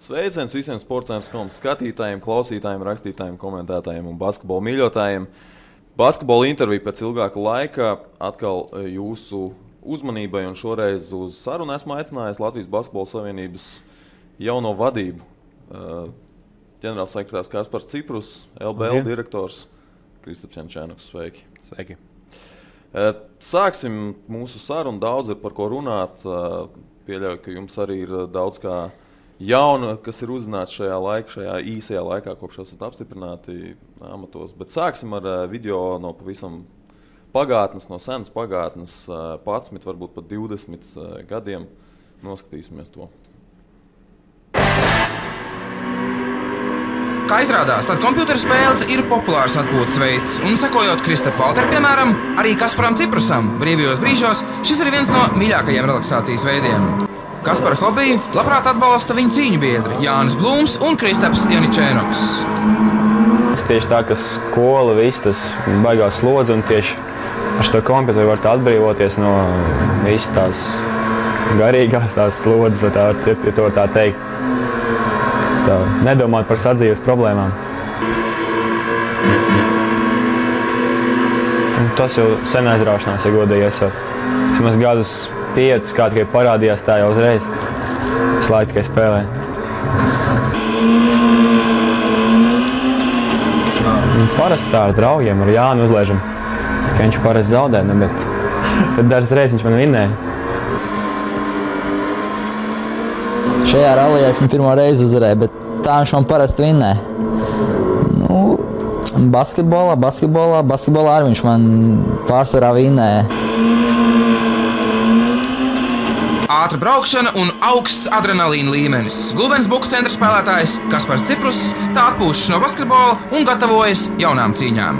Sveiciens visiem sports.com skatītājiem, klausītājiem, rakstītājiem, komentētājiem un basketbola mīļotājiem. Basketbola intervija pēc ilgāka laika atkal jūsu uzmanībai, un šoreiz uz sarunu esmu aicinājis Latvijas Basketbola Savienības jauno vadību. Ģenerālsekretārs Kaspars Ciprus, LBL direktors Kristaps Jančēnoks. Sveiki! Sveiki! Sāksim mūsu sarunu, daudz ir par ko runāt. Pieļauju, ka jums arī ir daudz kā jauna, kas ir uzzināts šajā īsajā laikā, kopš esat apstiprināti amatos. Bet sāksim ar video no pavisam pagātnes, no senas pagātnes, 11, varbūt pat 20 gadiem. Noskatīsimies to. Kā izrādās, tad kompjuterspēles ir populārs atpūtas veids, un sekojot Kristapa Valtera, piemēram, arī Kasparam Ciprusam brīvajos brīžos šis ir viens no mīļākajiem relaksācijas veidiem. Kaspara hobiju labprāt atbalsta viņa cīņu biedri Jānis Blūms un Kristaps Jančēnoks. Tieši tā, ka skola, viss tas baigās slodze, un tieši ar šo kompjuteru var atbrīvoties no visas tās garīgās tās slodzes, ja to var tā teikt. Tā, nedomāt par sadzīves problēmām. Un tas jau sen aizraušanās, ja godīgais jau. Vismaz gadus 5, kā tikai parādījās tā jau uzreiz. Es laiku tikai spēlēju. Parasti tā ar draugiem, ar Jānu uzlēžam. Ka viņš parasti zaudē, bet tad dažas reizes viņš man vinnēja. Šajā rallijā es viņu pirmo reizi uzvarēju, bet tā viņš man parasti vinnē. Basketbolā arī viņš man pārsvarā vinnē. Ātra braukšana un augsts adrenalīna līmenis. Glubensbuku centra spēlētājs Kaspars Ciprus tā atpūšas no basketbola un gatavojas jaunām cīņām.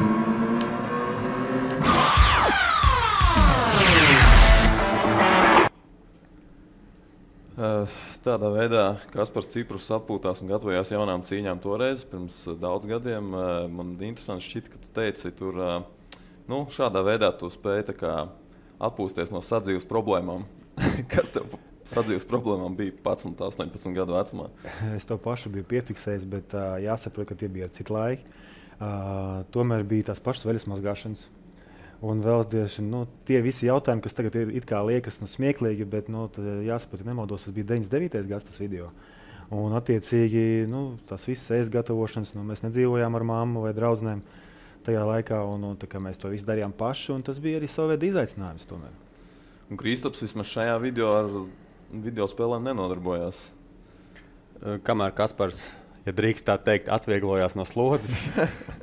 Tādā veidā Kaspars Ciprus atpūtās un gatavojās jaunām cīņām toreiz, pirms daudz gadiem. Man interesanti šķita, ka tu teici, tur šādā veidā tu spēji atpūsties no sadzīves problēmām. Kas tev sadzīves problēmām bija 11, 18 gadu vecumā? Es to pašu biju piefiksējis, bet jāsaprot, ka tie bija ar citu laiku. Tomēr bija tās pašas veļas mazgāšanas. Un vēl tie visi jautājumi, kas tagad it kā liekas smieklīgi, bet jāsaprot, ja nemaldos, tas bija 99. gads tas video. Un attiecīgi tās visas ēst gatavošanas, mēs nedzīvojām ar mammu vai draudzenēm tajā laikā, un mēs to visu darījām paši, un tas bija arī savu veidu izaicinājums tomēr. Un Kristaps vismaz šajā video ar video spēlēm nenodarbojās. Kamēr Kaspars, ja drīkst tā teikt, atvieglojās no slodzes,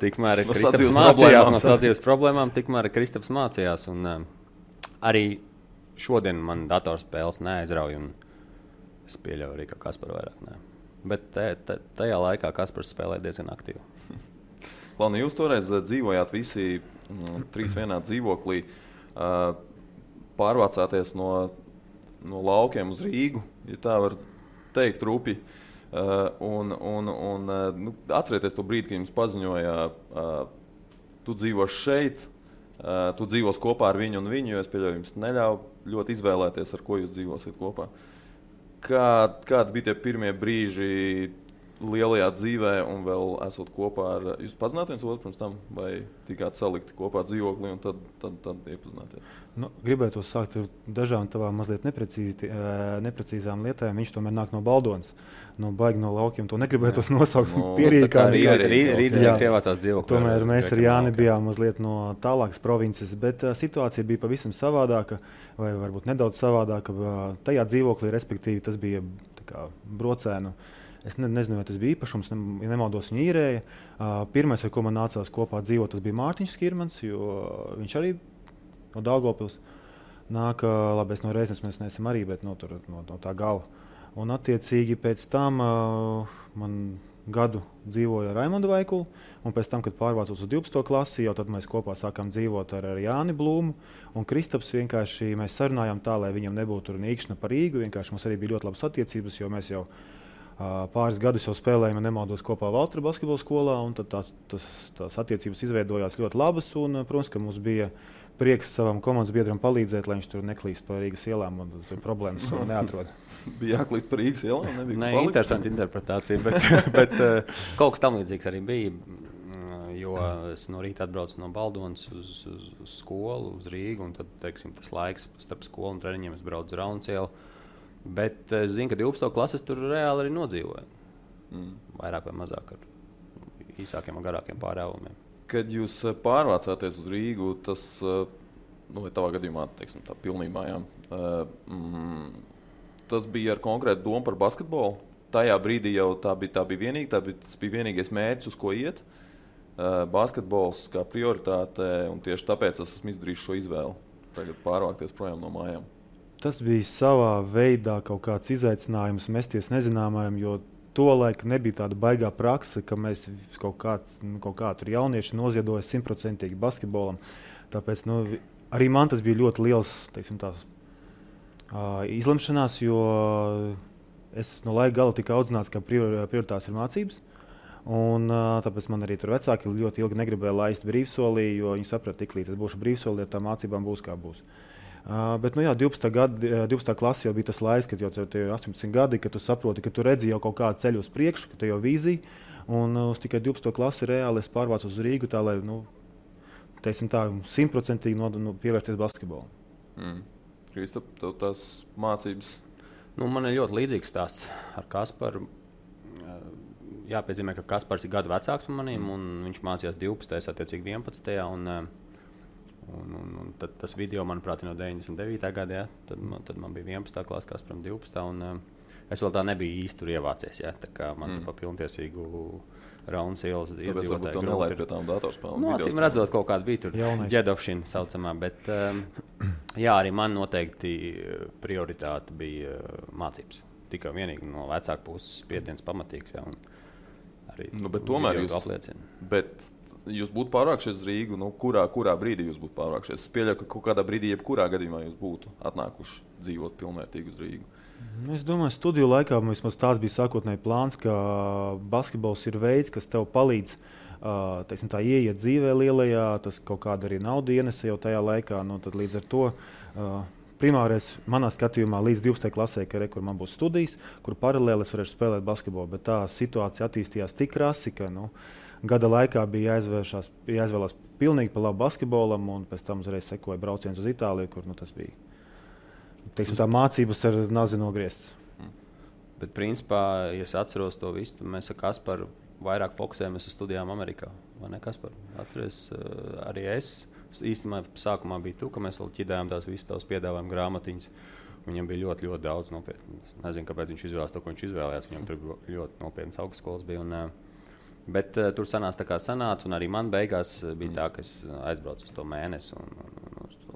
tikmēr Kristaps mācījās no sadzīves problēmām, tikmēr Kristaps mācījās. Un, arī šodien man datorspēles neaizrauj, un es pieļauju arī, ka Kaspar vairāk nē. Bet tajā laikā Kaspars spēlēja diezgan aktīvi. Klauni, jūs toreiz dzīvojāt visi 3 vienā dzīvoklī, pārvācāties no laukiem uz Rīgu, ja tā var teikt, rupi. Atcerieties to brīdi, kad jums paziņoja, tu dzīvos šeit, tu dzīvos kopā ar viņu un viņu, jo es pieļauju, jums neļauj ļoti izvēlēties, ar ko jūs dzīvosiet kopā. Kādi bija tie pirmie brīži lielajā dzīvē un vēl esot kopā ar... Jūs pazināt viens otru pirms tam, vai tikāt salikti kopā dzīvoklī un tad iepazināties? Gribētu sākt ar dažām tavām mazliet neprecīzām lietām. Viņš tomēr nāk no Baldonas, baigi no laukiem. To negribētu nosaukt pierīgāni. Rīdzinieks ievācās dzīvoklī. Tomēr mēs ar Jāni bijām mazliet no tālākas provinces, bet situācija bija pavisam savādāka, vai varbūt nedaudz savādāka. Tajā dzīvoklī, respektīvi, tas bija brocēnu. Es nezinu, vai tas bija īpašums, ja nemaldos viņa īrēja. Pirmais, ar ko man nācās kopā dzīvot, tas bija Mārtiņš Skirmans, jo viņš arī no Daugavpils nāk, labi, es no Reiznes mēs neesam arī, bet no tā gala. Un attiecīgi pēc tam man gadu dzīvoja Raimondu Vaikulu, un pēc tam, kad pārvācos uz 12. klasi, jau tad mēs kopā sākām dzīvot ar Jāni Blūmu, un Kristaps vienkārši mēs sarunājām tā, lai viņam nebūtu nīkšana par Rīgu, vienkārši mums arī bija ļoti labas attiecības, jo mēs jau pāris gadus jau spēlējām, ja nemaldos, kopā Valtera basketbola skolā, un tad tās attiecības izveidojās ļoti labas, un, protams, ka mums bija prieks savam komandas biedram palīdzēt, lai viņš tur neklīst pa Rīgas ielām un problēmas neatrod. Bija jāklīst par Rīgas ielām? Nē, interesanti interpretācija, bet kaut kas tam līdzīgs arī bija. Jo es no rīta atbraucu no Baldonas uz skolu, uz Rīgu, un tad, teiksim, tas laiks starp skolu un treniņiem es braucu uz Rauncielu. Bet es zinu, ka 12. klases tur reāli arī nodzīvoju. Vairāk vai mazāk ar īsākiem un garākiem pārēvumiem. Kad jūs pārvācāties uz Rīgu, tas, tavā gadījumā, teiksim, tā pilnībā, jā, tas bija ar konkrētu domu par basketbolu? Tajā brīdī jau tas bija vienīgais mērķis, uz ko iet. Basketbols kā prioritāte, un tieši tāpēc es esmu izdarījis šo izvēli. Tagad pārvākties projām no mājām. Tas bija savā veidā kaut kāds izaicinājums mesties nezināmajam, jo tolaik nebija tāda baigā prakse, ka mēs kaut kā tur jaunieši noziedoja 100% basketbolam. Tāpēc arī man tas bija ļoti liels, teiksim, izlemšanās, jo es no laika gala tika audzināts, ka prioritātes ir mācības. Un, tāpēc man arī tur vecāki ļoti ilgi negribēja laist brīvsolī, jo viņi saprata, tik līdz es būšu brīvsolī, ar tām mācībām būs kā būs. Bet 12. klase jau bija tas laiks, kad jau tev ir 18 gadi, kad tu saproti, ka tu redzi jau kaut kādu ceļu uz priekšu, ka tev jau vīzija. Un uz tikai 12. klasi reāli es pārvācu uz Rīgu tā, lai, teiksim tā, 100% pievērsties basketbolam. Kristap, tev tās mācības? Man ir ļoti līdzīgs stāsts ar Kasparu. Jāpiezīmē, ka Kaspars ir gadu vecāks par maniem, un viņš mācījās 12. attiecīgi 11. Un tad tas video, manuprāt, ir no 99. gada, tad man bija 11. klase, Kasparam 12. Un es vēl tā nebiju īsti tur ievācies, tā kā man pa pilntiesīgu Raunas ielas iedzīvotāju. Tāpēc varbūt tev nelaid pie tām datorspēlēm. Acīm redzot, kaut kāda bija tur ģedovšana saucamā, bet jā, arī man noteikti prioritāte bija mācības. Tikai vienīgi no vecāku puses spiediens pamatīgs, jā, un arī bet tomēr jūs būtu pārvākšies uz Rīgu, kurā brīdī jūs būtu pārvākšies? Es pieļauju, ka kaut kādā brīdī, jebkurā gadījumā jūs būtu atnākuši dzīvot pilnvērtīgi uz Rīgu. Es domāju, studiju laikā mums tās bija sākotnēji plāns, ka basketbols ir veids, kas tev palīdz teiksim, tā, ieiet dzīvē lielajā, tas kaut kādu arī naudu ienesa jau tajā laikā, tad līdz ar to primārais manā skatījumā līdz 12. klasē, kur man būs studijas, kur paralēli es varēšu spēlēt basketbolu, bet tā situācija attīstījās tik krasi, ka gada laikā bija jāizvēlās pilnīgi pa labu basketbolam, un pēc tam uzreiz sekoja brauciens uz Itāliju, kur tas bija. Teiksim, tā mācības ar nazi nogrieztas. Bet principā, ja es atceros to visu, tad mēs ar Kasparu vairāk fokusējamies uz studijām Amerikā. Vai ne, Kaspar? Atceries, arī es. Īstenībā sākumā bija tu, ka mēs vēl ķidējām tās visas tavas piedāvājuma grāmatiņas. Viņam bija ļoti, ļoti daudz nopietnu. Es nezinu, kāpēc viņš izvēlējās to, ko viņš izvēlējās. Viņam tur ļoti nopietnas augstskolas bija. Bet tur sanāca tā kā sanāca, un arī man beigās bija tā, ka es aizbraucu uz to mēnesi un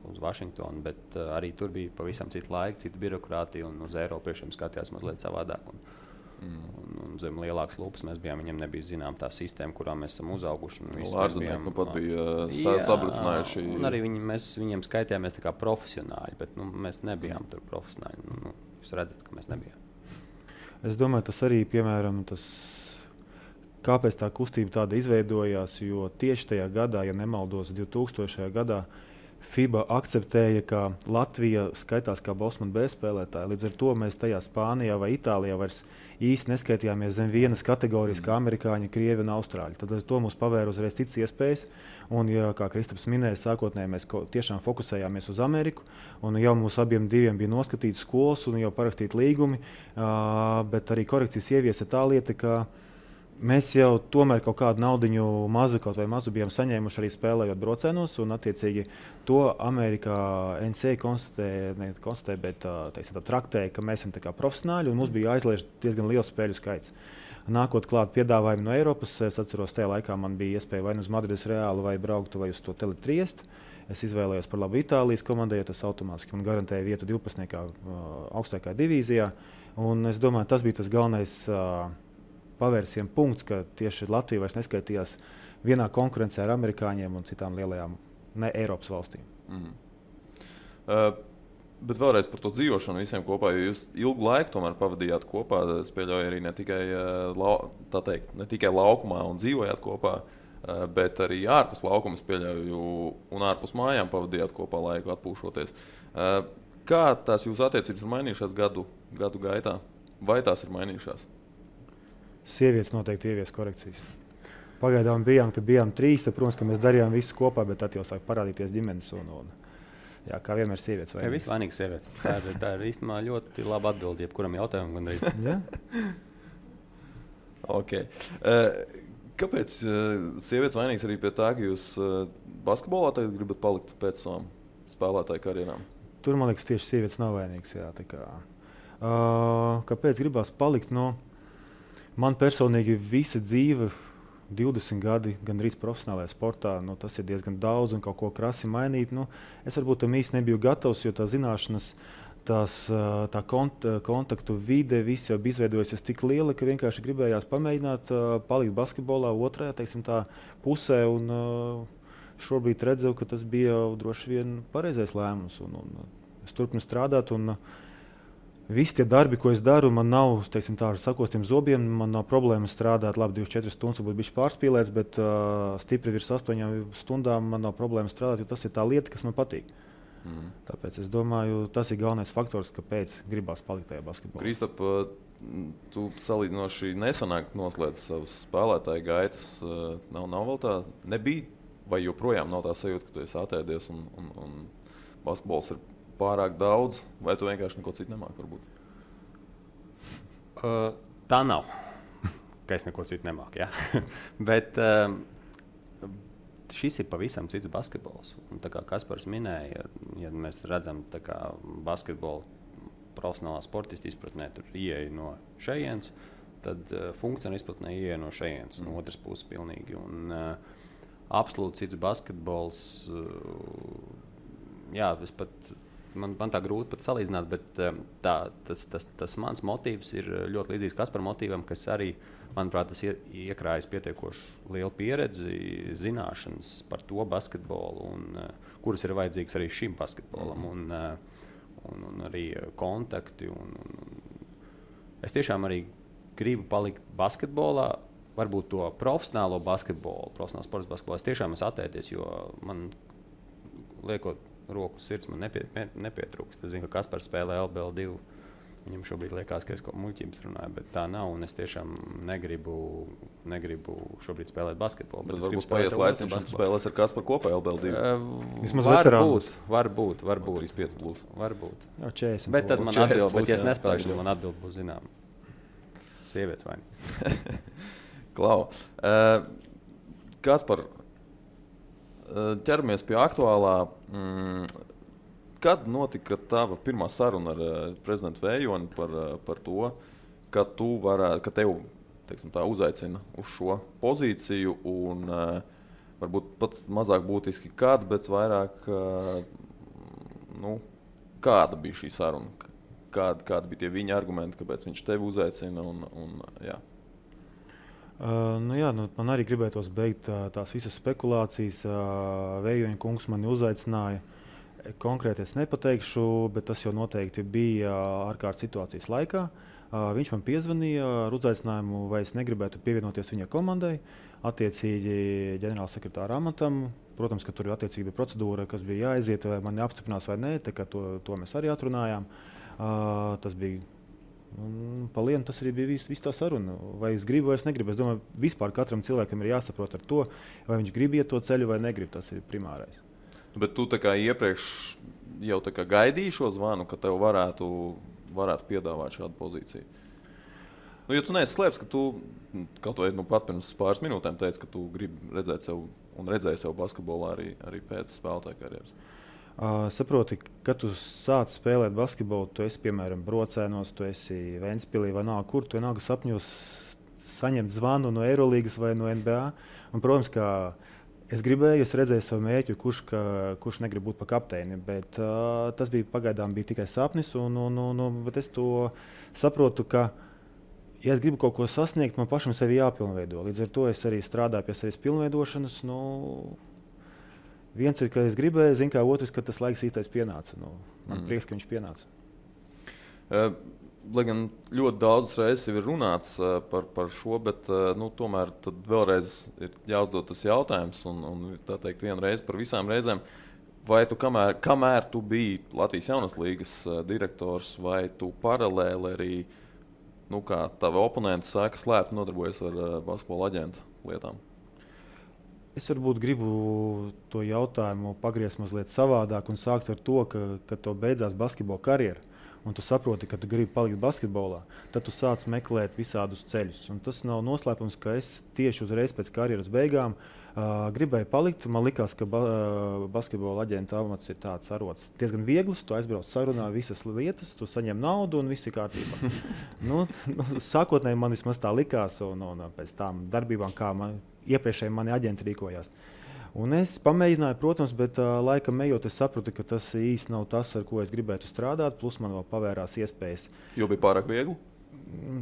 uz Vašingtonu, bet arī tur bija pavisam cita laika, cita birokrātija, un uz Eiropiešiem skatījās mazliet savādāk. Un zem lielākas lupas mēs bijām, viņam nebija zinām tā sistēma, kurā mēs esam uzauguši. Ārzemnieki pat bija sabrucinājuši. Un arī mēs viņiem skaitījāmies tā kā profesionāļi, bet mēs nebijām tur profesionāļi. Jūs redzat, ka mēs nebijām. Es domāju, tas arī, piemēram, kāpēc tā kustība tāda izveidojās, jo tieši tajā gadā, ja nemaldos, 2000. gadā, FIBA akceptēja, ka Latvija skaitās kā Bosman B spēlētāja. Līdz ar to mēs tajā Spānijā vai Itālijā vairs īsti neskaitījāmies zem vienas kategorijas kā amerikāņi, krievi un austrāļi. Tad to mums pavēra uzreiz citas iespējas. Un, ja, kā Kristaps minēja, sākotnēji mēs tiešām fokusējāmies uz Ameriku. Un jau mums abiem diviem bija noskatītas skolas un jau parakstīti līgumi. Bet arī korekcijas ieviesa tā lieta, ka mēs jau tomēr kaut kādu naudiņu mazu bijām saņēmuši arī spēlējot braucienos, un attiecīgi to Amerikā NCAA konstatēja, bet teiksim, traktēja, ka mēs esam tā kā profesionāļi, un mums bija jāizliež diezgan liels spēļu skaits. Nākot klāt piedāvājumi no Eiropas, es atceros, tajā laikā man bija iespēja vai uz Madrides Reālu vai brauktu vai uz to Tele-Triest. Es izvēlējos par labu Itālijas komandai, jo tas automātiski man garantēja vietu 12. augstākajā divīzijā, un es domāju, tas bija tas galvenais pavērsienu punkts, ka tieši Latvija vairs neskaitījās vienā konkurencē ar amerikāņiem un citām lielajām ne Eiropas valstīm. Bet vēlreiz par to dzīvošanu visiem kopā, jo jūs ilgu laiku tomēr pavadījāt kopā, es pieļauju arī ne tikai laukumā un dzīvojāt kopā. bet arī ārpus laukuma pieļauju un ārpus mājām pavadījāt kopā laiku atpūšoties. Kā tās jūsu attiecības ir mainījušās gadu gaitā? Vai tās ir mainījušās? Sievietes noteikti ievies korekcijas. Pagaidām bijām 3, tad, protams, ka mēs darījām visu kopā, bet tad jau sāk parādīties ģimenes jā, kā vienmēr sievietes vainīgas. Viss vainīgs sievietes. Tā ir īstenībā ļoti laba atbilde jebkuram jautājumam gandrīz. Ja? Okay. Kāpēc sievietes vainīgas arī pie tā, ka jūs basketbolā tagad gribat palikt pēc savām spēlētāju karjerām? Tur, man liekas, tieši sievietes nav vainīgas. Jā, kāpēc gribās palikt? Man personīgi visa dzīve, 20 gadi, gandrīz profesionālajā sportā, tas ir diezgan daudz un kaut ko krasi mainīt. Es varbūt tam īsti nebiju gatavs, jo tā zināšanas, tā kontaktu vide, viss jau bija izveidojusies tik liela, ka vienkārši gribējās pamēģināt palikt basketbolā otrajā, tā pusē. Šobrīd redzu, ka tas bija droši vien pareizais lēmums. Es turpinu strādāt. Visi tie darbi, ko es daru, man nav ar sakostiem zobiem, man nav problēma strādāt labi 24 stundas, varbūt bišķi pārspīlēts, bet stipri virs 8 stundām man nav problēma strādāt, jo tas ir tā lieta, kas man patīk. Tāpēc es domāju, tas ir galvenais faktors, kāpēc gribās palikt tajā basketbolā. Kristap, tu salīdzinoši nesanāk noslēdz savus spēlētāju gaitas. Nav vēl tā, nebija, vai joprojām nav tā sajūta, ka tu esi atēdies un basketbols ir pārāk daudz, vai tu vienkārši neko citu nemāki varbūt? Tā nav, ka es neko citu nemāku, jā. Bet šis ir pavisam cits basketbols. Un, tā kā Kaspars minēja, ja mēs redzam basketbolu profesionālā sportista izpratnē, tur ieeja no šejienes, tad funkcionāla izpratnē ieeja no šejienes, no otras puses pilnīgi. Un absolūti cits basketbols, jā, Man tā grūti pat salīdzināt, bet tas mans motīvs ir ļoti līdzīgs Kaspara motīvam, kas arī, manuprāt, tas iekrājas pietiekoši lielu pieredzi, zināšanas par to basketbolu, kuras ir vajadzīgas arī šim basketbolam, un arī kontakti. Es tiešām arī gribu palikt basketbolā, varbūt to profesionālo basketbolu, profesionālo sports basketbolu. Es tiešām esmu attēties, jo man liekot roku sirds man nepietrūkst. Es zinu, ka Kaspars spēlē LBL 2. Viņam šobrīd liekas, ka es kaut muļķības runāju, bet tā nav. Un es tiešām negribu šobrīd spēlēt basketbolu. Bet varbūt paies laiks, viņš spēlēs ar Kasparu kopā LBL 2. Vismaz varbūt. 35 plus. Varbūt. Jā, 40. Bet tad man atbild, bet ja es nespēlēšu, tad man atbild būs zinām. Sievietes vainīgas. Klau. Kaspar, ķeramies pie aktuālā. Kad notika tava pirmā saruna ar prezidentu Vējoni par to, ka tev uzaicina uz šo pozīciju un varbūt pat mazāk būtiski kad, bet vairāk kāda bija šī saruna? Kādi bija tie viņa argumenti, kāpēc viņš tevi uzaicina? Jā. Man arī gribētos beigt tās visas spekulācijas. Vējoņa kungs mani uzaicināja. Konkrēti es nepateikšu, bet tas jau noteikti bija ārkārtas situācijas laikā. Viņš man piezvanīja ar uzaicinājumu, vai es negribētu pievienoties viņa komandai, attiecīgi ģenerālsekretāra amatam. Protams, ka tur attiecīgi bija procedūra, kas bija jāaiziet, vai mani apstiprinās vai nē, to mēs arī atrunājām. Tas bija palienu, tas arī bija viss tā saruna. Vai es gribu, vai es negribu. Es domāju, vispār katram cilvēkam ir jāsaprot ar to, vai viņš grib iet to ceļu vai negrib. Tas ir primārais. Bet tu iepriekš jau gaidīji šo zvanu, ka tev varētu piedāvāt šādu pozīciju. Ja tu neesi slēpts, ka tu kaut vai pat pirms pāris minūtēm teici, ka tu gribi redzēt sev un redzēji sev basketbolā arī pēc spēlētāja karjeras. Saproti, kad tu sāc spēlēt basketbolu, tu esi, piemēram, Brocēnos, tu esi Ventspilī vai kur, tu vienalga sapņos saņemt zvanu no Eirolīgas vai no NBA. Un, protams, ka es redzēju savu mērķu, kurš negrib būt par kapteini, bet tas pagaidām bija tikai sapnis, bet es to saprotu, ka, ja es gribu kaut ko sasniegt, man pašam sevi jāpilnveido. Līdz ar to es arī strādāju pie sevis pilnveidošanas. Viens ir, ka es gribēju, otrs, ka tas laiks īstais pienāca. Man prieks, ka viņš pienāca. lai gan ļoti daudz reizes ir runāts par šo, bet tomēr vēlreiz ir jāuzdod tas jautājums, un tā teikt, vienreiz par visām reizēm. Vai tu, kamēr tu biji Latvijas Jaunās līgas direktors, vai tu paralēli arī, kā tavi oponenti saka, slēpti nodarbojas ar basketbola aģentu lietām? Es varbūt gribu to jautājumu pagriezt mazliet savādāk un sākt ar to, ka to beidzās basketbola karjera. Un tu saproti, ka tu gribi palikt basketbolā, tad tu sāc meklēt visādus ceļus. Un tas nav noslēpums, ka es tieši uzreiz pēc karjeras beigām gribēju palikt. Man likās, ka basketbola aģenta amats ir tāds arots diezgan viegls. Tu aizbrauc sarunā visas lietas, tu saņem naudu un viss ir kārtībā. Sākotnēji man vismaz tā likās, un pēc tām darbībām, kā iepriekšēji mani aģenti rīkojās. Un es pamēģināju, protams, bet laikam ejot, es sapratu, ka tas īsti nav tas, ar ko es gribētu strādāt. Plus man vēl pavērās iespējas. Jo bija pārāk viegli?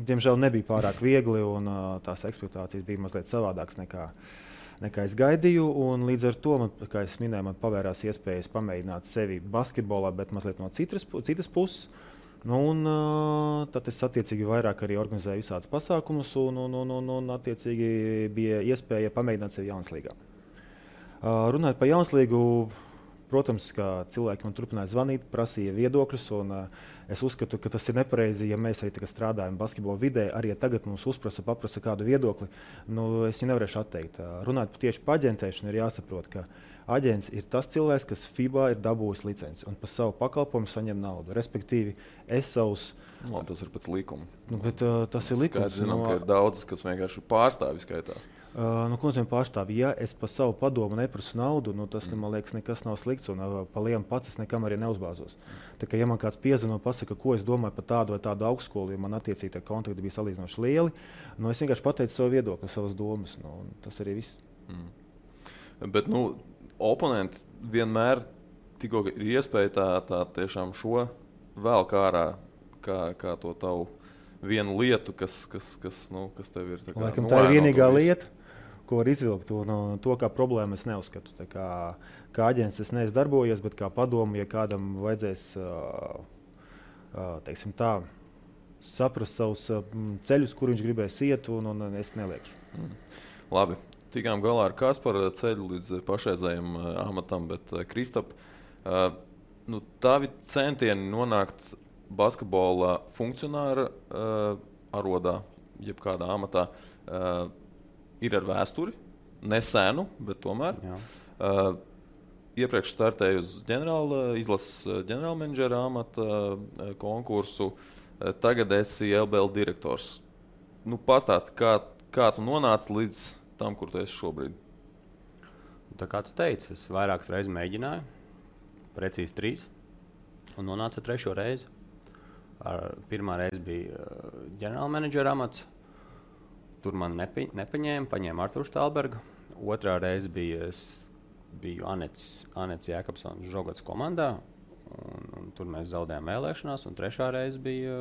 Diemžēl nebija pārāk viegli, un tās ekspektācijas bija mazliet savādākas nekā es gaidīju. Un līdz ar to, kā es minēju, man pavērās iespējas pamēģināt sevi basketbolā, bet mazliet no citas puses. Tad es attiecīgi vairāk arī organizēju visādus pasākumus, un attiecīgi bija iespēja pamēģināt sevi Jaunas līgā. Runājot par Jaunas līgu, protams, ka cilvēki man turpināja zvanīt, prasīja viedokļus, un es uzskatu, ka tas ir nepareizi, ja mēs arī tagad strādājam basketbola vidē, arī ja tagad mums paprasa kādu viedokli, es viņu nevarēšu atteikt. Runājot tieši par aģentēšanu, ir jāsaprot, ka aģents ir tas cilvēks, kas FIBA ir dabūjis licenci un par savu pakalpojumu saņem naudu. Respektīvi, es savus... Tas ir pēc likuma. Tas ir likums. Skaidrs, zinām, ka ir daudz, kas vienkārši pārstāvi skaitās. Ko nozīmē pārstāvi? Ja es par savu padomu neprasu naudu, tas, man liekas, nekas nav slikts, un pa lielu pats es nekam arī neuzbāzos. Tā kā, ja man kāds piezvana un pasaka, ko es domāju par tādu vai tādu augstskolu, jo man attiecīgi tie kontakti bija salīdzinoši lieli, es vienkārši pateicu savu viedokli, savas domas, tas arī viss. Bet, oponenti vienmēr tikko ir iespēja tā tiešām šo vēl ārā, kā to tavu vienu lietu, kas tev ir. Laikam tā ir vienīgā lieta, ko var izvilkt. To kā problēmu es neuzskatu. Kā aģents es neesmu darbojies, bet kā padomu, ja kādam vajadzēs saprast savus ceļus, kur viņš gribēs iet, un es neliekšu. Labi. Tikām galā ar Kasparu ceļu līdz pašreizējiem amatam, bet Kristap, tavi centieni nonākt basketbola funkcionāra arodā, jebkādā amatā, ir ar vēsturi, nesenu, bet tomēr. Iepriekš startēju uz izlases ģenerālmenedžera amata konkursu, tagad esi LBL direktors. Pastāsti, kā tu nonāci līdz tam, kur tu esi šobrīd? Tā kā tu teici, es vairākas reizes mēģināju, precīzi 3, un nonācu 3. reizi. Pirmā reize bija ģenerālmenedžera amats. Tur man nepaņēma, paņēma Arturu Štālbergu. Otrā reize biju Anets Jēkabsons Žogots komandā, un tur mēs zaudējām vēlēšanās, un 3. reize bija,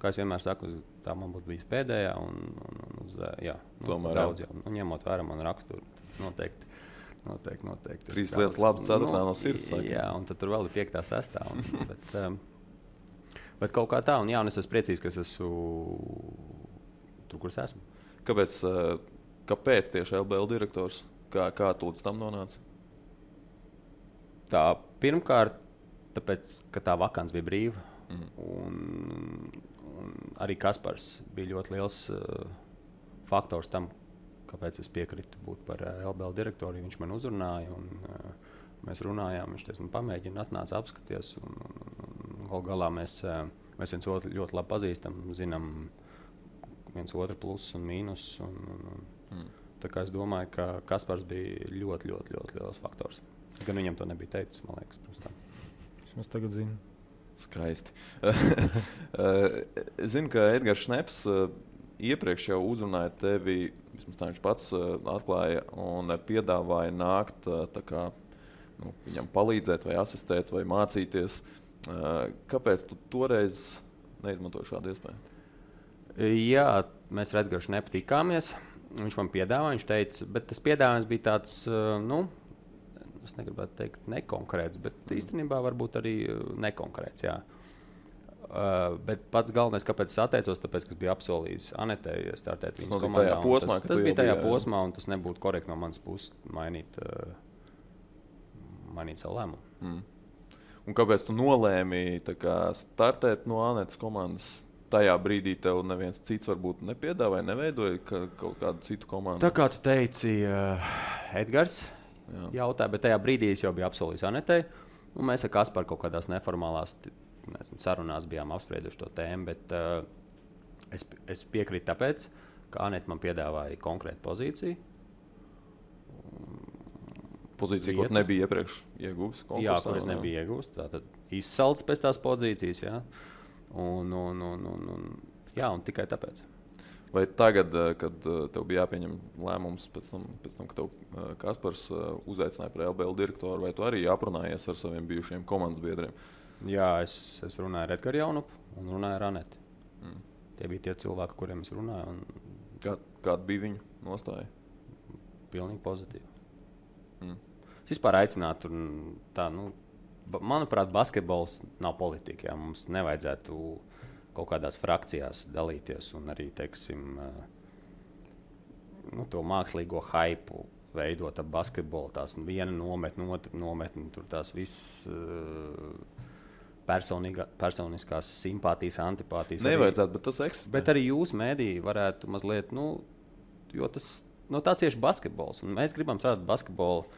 kā es vienmēr saku, tā man būtu bijis pēdējā, daudz jau. Ņemot vērā man raksturu, noteikti. 3 lietas labas, 4. no sirds. Jā, un tad tur vēl ir 5. 6. Bet kaut kā tā, un es esmu priecīgs, ka es esmu tur, kur es esmu. Kāpēc tieši LBL direktors? Kā tu līdz tam nonāci? Tā pirmkārt, tāpēc, ka tā vakants bija brīva. Un arī Kaspars bija ļoti liels faktors tam, kāpēc es piekritu būt par LBL direktoru. Viņš man uzrunāja, un mēs runājām. Viņš teica, pamēģina, atnāca apskaties. Galu galā mēs viens otru ļoti labi pazīstam, zinām viens otru plusus un mīnus. Tā kā es domāju, ka Kaspars bija ļoti, ļoti, ļoti liels faktors. Gan viņam to nebija teicis, man liekas, pirms tam. Es tagad zinu. Skaisti. Es zinu, ka Edgars Šneps iepriekš jau uzrunāja tevi, vismaz tā viņš pats atklāja, un piedāvāja nākt viņam palīdzēt, vai asistēt, vai mācīties. Kāpēc tu toreiz neizmantoji šādu iespēju? Jā, mēs ar Edgars Šnepu tikāmies. Viņš man piedāvāja, viņš teica, bet tas piedāvājums bija tāds, es negribētu teikt nekonkrēts, bet īstenībā varbūt arī nekonkrēts, jā. Bet pats galvenais, kāpēc es atteicos, tāpēc, ka es biju apsolījis Anetei startēt viņas komandā. Tajā posmā, tas bija tajā posmā, un tas nebūtu korekti no manas puses mainīt savu lēmumu. Un kāpēc tu nolēmi startēt no Anetes komandas? Tajā brīdī tev neviens cits varbūt nepiedāvāja, neveidoja kaut kādu citu komandu. Tā kā tu teici, Edgars jautāja, bet tajā brīdī es jau biju apsolījis Anetei. Mēs ar Kasparu kaut kādās neformālās sarunās bijām apsprieduši to tēmu, bet es piekrītu tāpēc, ka Anete man piedāvāja konkrētu pozīciju. Pozīcija, ko nebija iepriekš iegūst? Jā, ko es nebiju iegūst. Tātad izsalts pēc tās pozīcijas, jā. Un tikai tāpēc. Vai tagad, kad tev bija jāpieņem lēmums pēc tam kad tev Kaspars uzaicināja par LBL direktoru, vai tu arī aprunājies ar saviem bijušiem komandas biedriem? Jā, es runāju ar Edgaru Jaunupu un runāju ar Aneti. Tie bija tie cilvēki, kuriem es runāju. Kāda bija viņu nostāja? Pilnīgi pozitīva. Es vispār aicinātu manuprāt, basketbols nav politika. Jā. Mums nevajadzētu kaut kādās frakcijās dalīties un arī, teiksim, to mākslīgo haipu veidot ap basketbolu. Tās viena nometne, otra nometne, tur tās visas personiskās simpātijas, antipātijas. Nevajadzētu, bet tas eksistē. Bet arī jūs, mēdīji, varētu mazliet, jo tas tā cieši basketbols. Un mēs gribam strādāt basketbolu.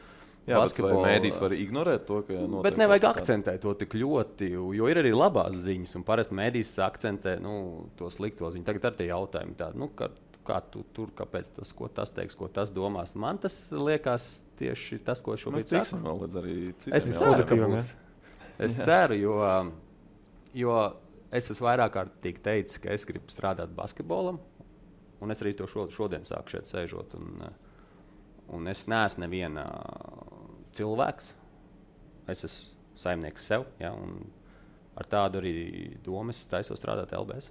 Jā, vai mēdīs var ignorēt to, ka notiek? Bet nevajag akcentēt to tik ļoti, jo ir arī labās ziņas, un parasti mēdīs akcentē to slikto ziņu. Tagad ar tie jautājumi tādi, kā tu tur, kāpēc tas, ko tas teiks, ko tas domās. Man tas liekas tieši tas, ko šobrīd saku. Mēs tiksim vēl līdz arī citiem. Es ceru, ka būs. Es ceru, jo es esmu vairāk kārtīgi teicis, ka es gribu strādāt basketbolam, un es arī to šodien sāku šeit sēžot. Un es neesmu neviena cilvēks. Es esmu saimnieks sev, ja, un ar tādu arī domu es taisos strādāt LBS.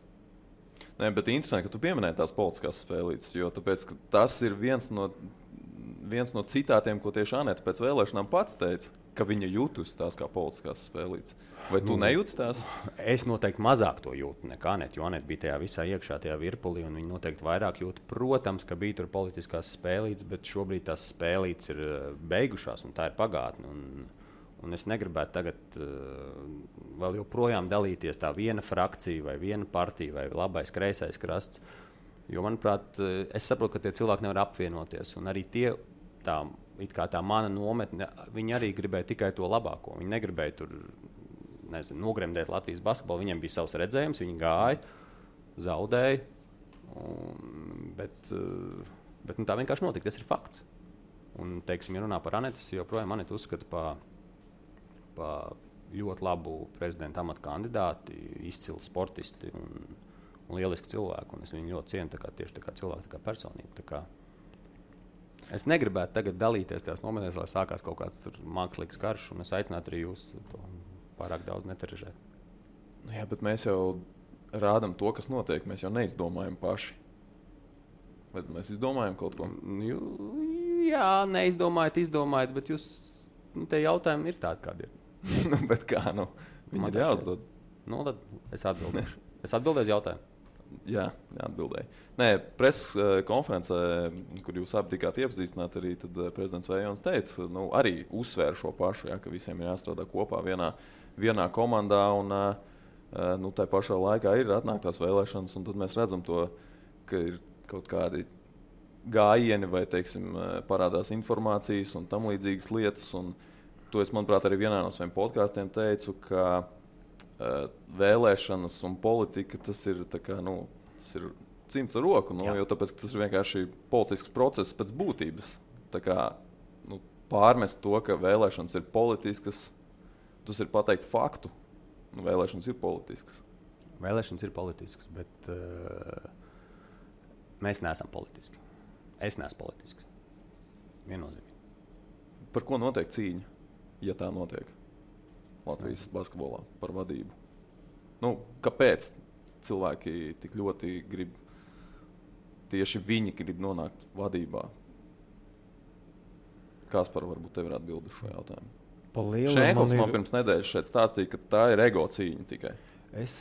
Nē, bet interesanti, ka tu pieminēji tās politiskās spēlītes, jo tāpēc, tas ir viens no citātiem, ko tieši Anete pēc vēlēšanām pats teica, ka viņa jūtas tās kā politiskās spēlītes. Vai tu nejūti tās? Es noteikti mazāk to jūtu nekā Anete, jo Anete bija tajā visā iekšā, tajā virpulī, un viņa noteikti vairāk jūta. Protams, ka bija tur politiskās spēlītes, bet šobrīd tās spēlītes ir beigušās, un tā ir pagātne. Un es negribētu tagad vēl joprojām dalīties tā viena frakcija, vai viena partija, vai labais, kreisais krasts. Jo, manuprāt, es saprotu, ka tie cilvēki nevar apvienoties, un arī tie tā mana nometne, viņi arī gribēja tikai to labāko. Viņi negribēja tur nogremdēt Latvijas basketbolu. Viņiem bija savs redzējums, viņi gāja, zaudēja. Bet tā vienkārši notika. Tas ir fakts. Un, teiksim, ja runā par Anetes, joprojām Anete uzskata par ļoti labu prezidenta amata kandidāti, izcilu sportisti un lielisku cilvēku. Un es viņu ļoti cienu tieši tā kā cilvēku, tā kā personību. Es negribētu tagad dalīties tajās nometnēs, lai sākās kaut kāds mākslīgs karš, un es aicinātu arī jūs to pārāk daudz neterežēt. Jā, bet mēs jau rādām to, kas notiek. Mēs jau neizdomājam paši. Vai mēs izdomājam kaut ko? Jā, neizdomājat, bet jūs, tie jautājumi ir tādi, kādi ir. Bet kā, viņi ir jāuzdod. Tad es atbildēšu. Es atbildēšu jautājumu. Jā, atbildēju. Nē, preses konferencē, kur jūs abi tikāt iepazīstināti, arī prezidents Vējons teica, arī uzsvēra šo pašu, ka visiem ir jāstrādā kopā vienā komandā, un tā pašā laikā ir atnāktās vēlēšanas, un tad mēs redzam to, ka ir kaut kādi gājieni vai, teiksim, parādās informācijas un tam līdzīgas lietas, un to es, manuprāt, arī vienā no saviem podkāstiem teicu, ka vēlēšanas un politika, tas ir cimds ar roku, jo tāpēc, tas ir vienkārši politisks process pēc būtības. Pārmest to, ka vēlēšanas ir politiskas, tas ir pateikt faktu. Vēlēšanas ir politiskas. Vēlēšanas ir politiskas, bet mēs neesam politiski. Es neesmu politisks. Viennozīmīgi. Par ko notiek cīņa, ja tā notiek? Latvijas basketbolā par vadību. Kāpēc cilvēki tik ļoti grib, tieši viņi grib nonākt vadībā? Kaspar, varbūt tev ir atbildi šo jautājumu. Šēnkovs man pirms nedēļas šeit stāstīja, ka tā ir ego cīņa tikai. Es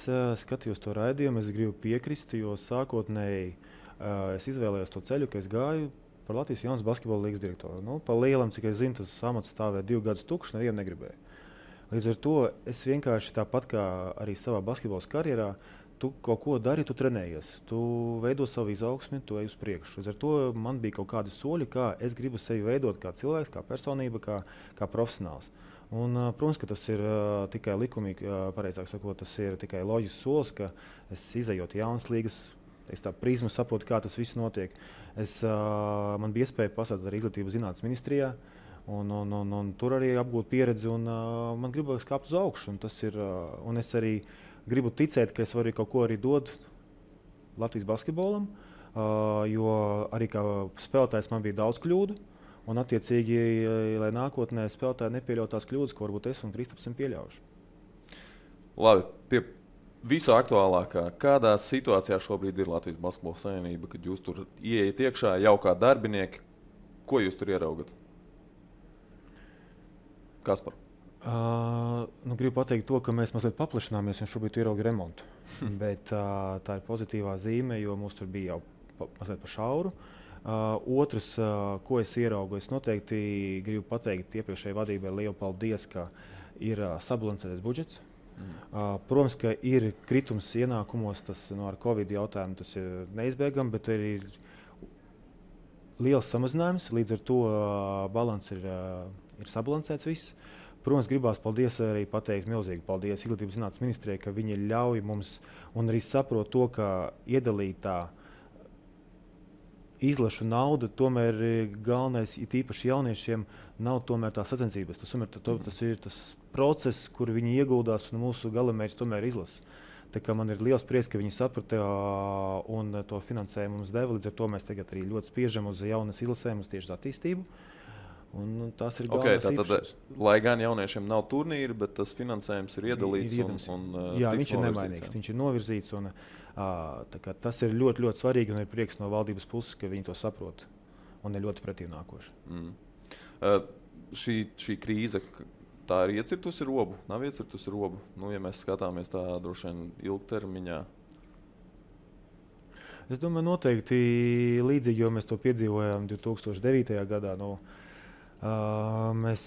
skatījos to raidījumu, es gribu piekrist, jo sākotnēji es izvēlējos to ceļu, ka es gāju par Latvijas jaunas basketbola līgas direktoru. Nu, pa lielam, cik es zinu, tas amats stāvēja 2 gadus tukšs, nevienu negribēju. Līdz ar to es vienkārši tāpat kā arī savā basketbola karjerā, tu kaut ko dari, tu trenējies, tu veido savu izaugsmi, tu ej uz priekšu. Līdz ar to man bija kaut kādi soļi, kā es gribu sevi veidot kā cilvēks, kā personība, kā profesionāls. Un, protams, ka tas ir tikai likumīgi, pareizāk sakot, tas ir tikai loģisks solis, ka es izejot jaunas līgas, es tā prizmu saprotu, kā tas viss notiek. Man bija iespēja pastrādāt arī Izglītības zinātnes ministrijā, un tur arī apgūt pieredzi, un man gribas kāpt uz augšu. Un es arī gribu ticēt, ka es varu kaut ko arī dot Latvijas basketbolam, jo arī kā spēlētājs man bija daudz kļūdu, un attiecīgi, lai nākotnē spēlētāji nepieļautu tās kļūdas, ko varbūt es un Kristaps esam pieļaujuši. Labi, pie visu aktuālākā, kādā situācijā šobrīd ir Latvijas basketbola savienība, kad jūs tur ieiet iekšā jau kā darbinieki, ko jūs tur ieraugat? Kaspar? Gribu pateikt to, ka mēs mazliet paplašināmies, un šobrīd ierauga remontu. Bet tā ir pozitīvā zīme, jo mums tur bija jau mazliet pa šauru. Otrs, ko es ieraugu, es noteikti gribu pateikt iepriekšējai vadībai lielu paldies, ka ir sabalansētais budžets. Protams, ka ir kritums ienākumos, tas ar Covid jautājumu tas ir neizbēgami, bet ir liels samazinājums, līdz ar to balans ir sabalansēts viss. Protams, gribās arī pateikt milzīgi paldies Izglītības zinātnes ministrijai, ka viņi ļauj mums un arī saprot to, ka iedalītā izlašu nauda tomēr galvenais, it īpaši jauniešiem, nav tomēr tā sacensības. Tas ir tas process, kur viņi ieguldās, un mūsu galamērķis tomēr izlasa. Tā kā man ir liels prieks, ka viņi saprata un to finansējumu mums deva. Līdz ar to mēs tagad arī ļoti spiežam uz jaunas izlasēm, uz tieši attīstību. Un tas ir galvenais īpašums. Lai gan jauniešiem nav turnīri, bet tas finansējums ir iedalīts. Jā, viņš ir nemainīgs, viņš ir novirzīts. Tas ir ļoti, ļoti svarīgi, un ir prieks no valdības puses, ka viņi to saprot un ir ļoti pretīm nākoši. Šī krīze, tā ir iecirtusi robu, nav iecirtusi robu? Ja mēs skatāmies tā droši vien ilgtermiņā. Es domāju, noteikti līdzīgi, jo mēs to piedzīvojām 2009. gadā. Mēs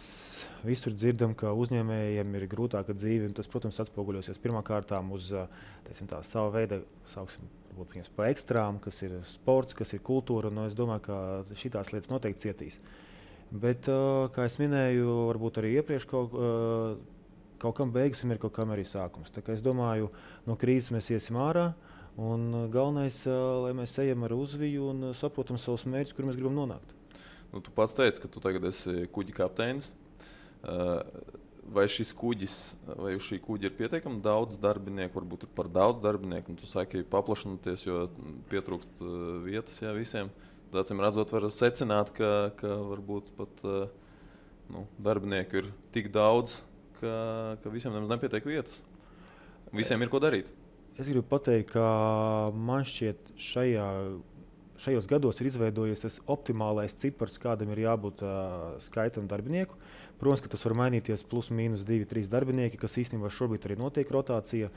visur dzirdam, ka uzņēmējiem ir grūtāka dzīve, un tas, protams, atspoguļosies pirmkārt uz savu veidu, varbūt pa ekstrām, kas ir sports, kas ir kultūra. Es domāju, ka šīs lietas noteikti cietīs. Bet, kā es minēju, varbūt arī iepriekš kaut kam beigas ir kaut kam arī sākums. Tā kā es domāju, no krīzes mēs iesim ārā, un galvenais, lai mēs ejam ar uzviju un saprotam savus mērķus, kur mēs gribam nonākt. Tu pats teici, ka tu tagad esi kuģa kapteinis. Vai šis kuģis, vai uz šī kuģa ir pietiekami daudz darbinieku, varbūt ir par daudz darbinieku, un tu saki paplašinoties, jo pietrūkst vietas visiem. Acīm redzot, var secināt, ka varbūt pat darbinieku ir tik daudz, ka visiem nemaz nepietiek vietas. Visiem ir ko darīt. Es gribu pateikt, ka man šķiet šajos gados ir izveidojies tas optimālais cipars, kādam ir jābūt skaitam darbinieku. Protams, ka tas var mainīties plus mīnus 2-3 darbinieki, kas īstenībā šobrīd arī notiek rotācija.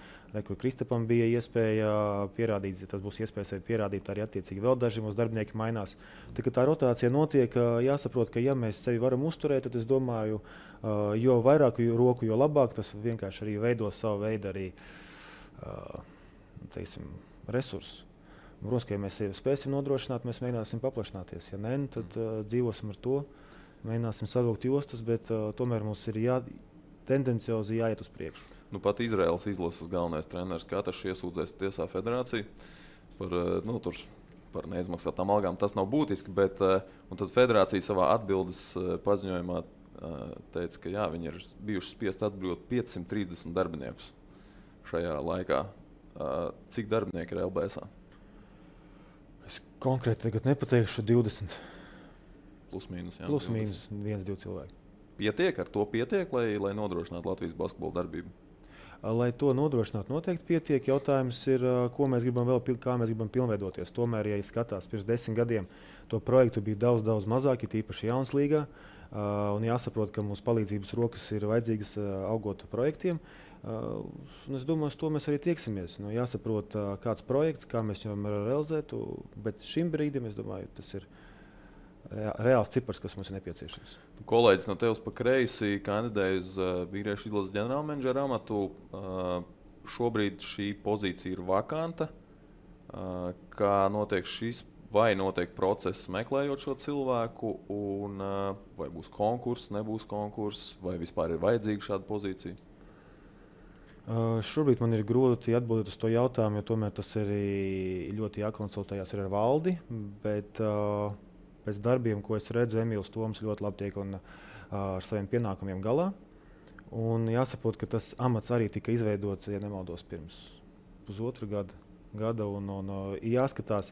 Kur Kristapam bija iespēja pierādīt, tas būs iespējas pierādīt arī attiecīgi vēl daži mūsu darbinieki mainās. Tā rotācija notiek, jāsaprot, ka ja mēs sevi varam uzturēt, tad es domāju, jo vairāk roku, jo labāk. Tas vienkārši arī veido savu veidu arī, resursus. Protams, ka ja mēs sevi spēsim nodrošināt, mēs mēģināsim paplašināties. Ja nē, tad dzīvosim ar to, mēģināsim savilkt jostas, bet tomēr mums ir tendenciozi jāiet uz priekšu. Pat Izraēlas izlases galvenais treneris Katars iesūdzēs tiesā federāciju par neizmaksātām algām. Tas nav būtiski, bet tad federācija savā atbildes paziņojumā teica, ka viņi ir bijuši spiest atbrīvot 530 darbiniekus šajā laikā. Cik darbinieki ir LBS? Es konkrēti tagad nepateikšu 20. Plus mīnus 1-2 cilvēki. Ar to pietiek, lai nodrošinātu Latvijas basketbola darbību? Lai to nodrošinātu, noteikti pietiek. Jautājums ir, ko mēs gribam kā mēs gribam pilnveidoties. Tomēr, ja skatās pirms 10 gadiem, to projektu bija daudz mazāk, tīpaši jaunas līgā. Un jāsaprot, ka mums palīdzības rokas ir vajadzīgas augot projektiem. Es domāju, uz to mēs arī tieksimies. Jāsaprot, kāds projekts, kā mēs viņu varam realizēt, bet šim brīdim, es domāju, tas ir reāls cipars, kas mums ir nepieciešams. Kolēģis no tevis pa kreisi kandidēja uz vīriešu izlases ģenerālmenedžera amatu. Šobrīd šī pozīcija ir vakanta. Kā notiek šis, vai notiek process meklējot šo cilvēku, un vai būs konkurss, nebūs konkurss, vai vispār ir vajadzīga šāda pozīcija? Šobrīd man ir grūti atbildēt uz to jautājumu, jo tomēr tas ir ļoti jākonsultējās ar valdi. Bet pēc darbiem, ko es redzu, Emīls Toms ļoti labi tiek ar saviem pienākumiem galā. Un jāsaprot, ka tas amats arī tika izveidots, ja nemaldos, pirms pusotra gada. Un jāskatās,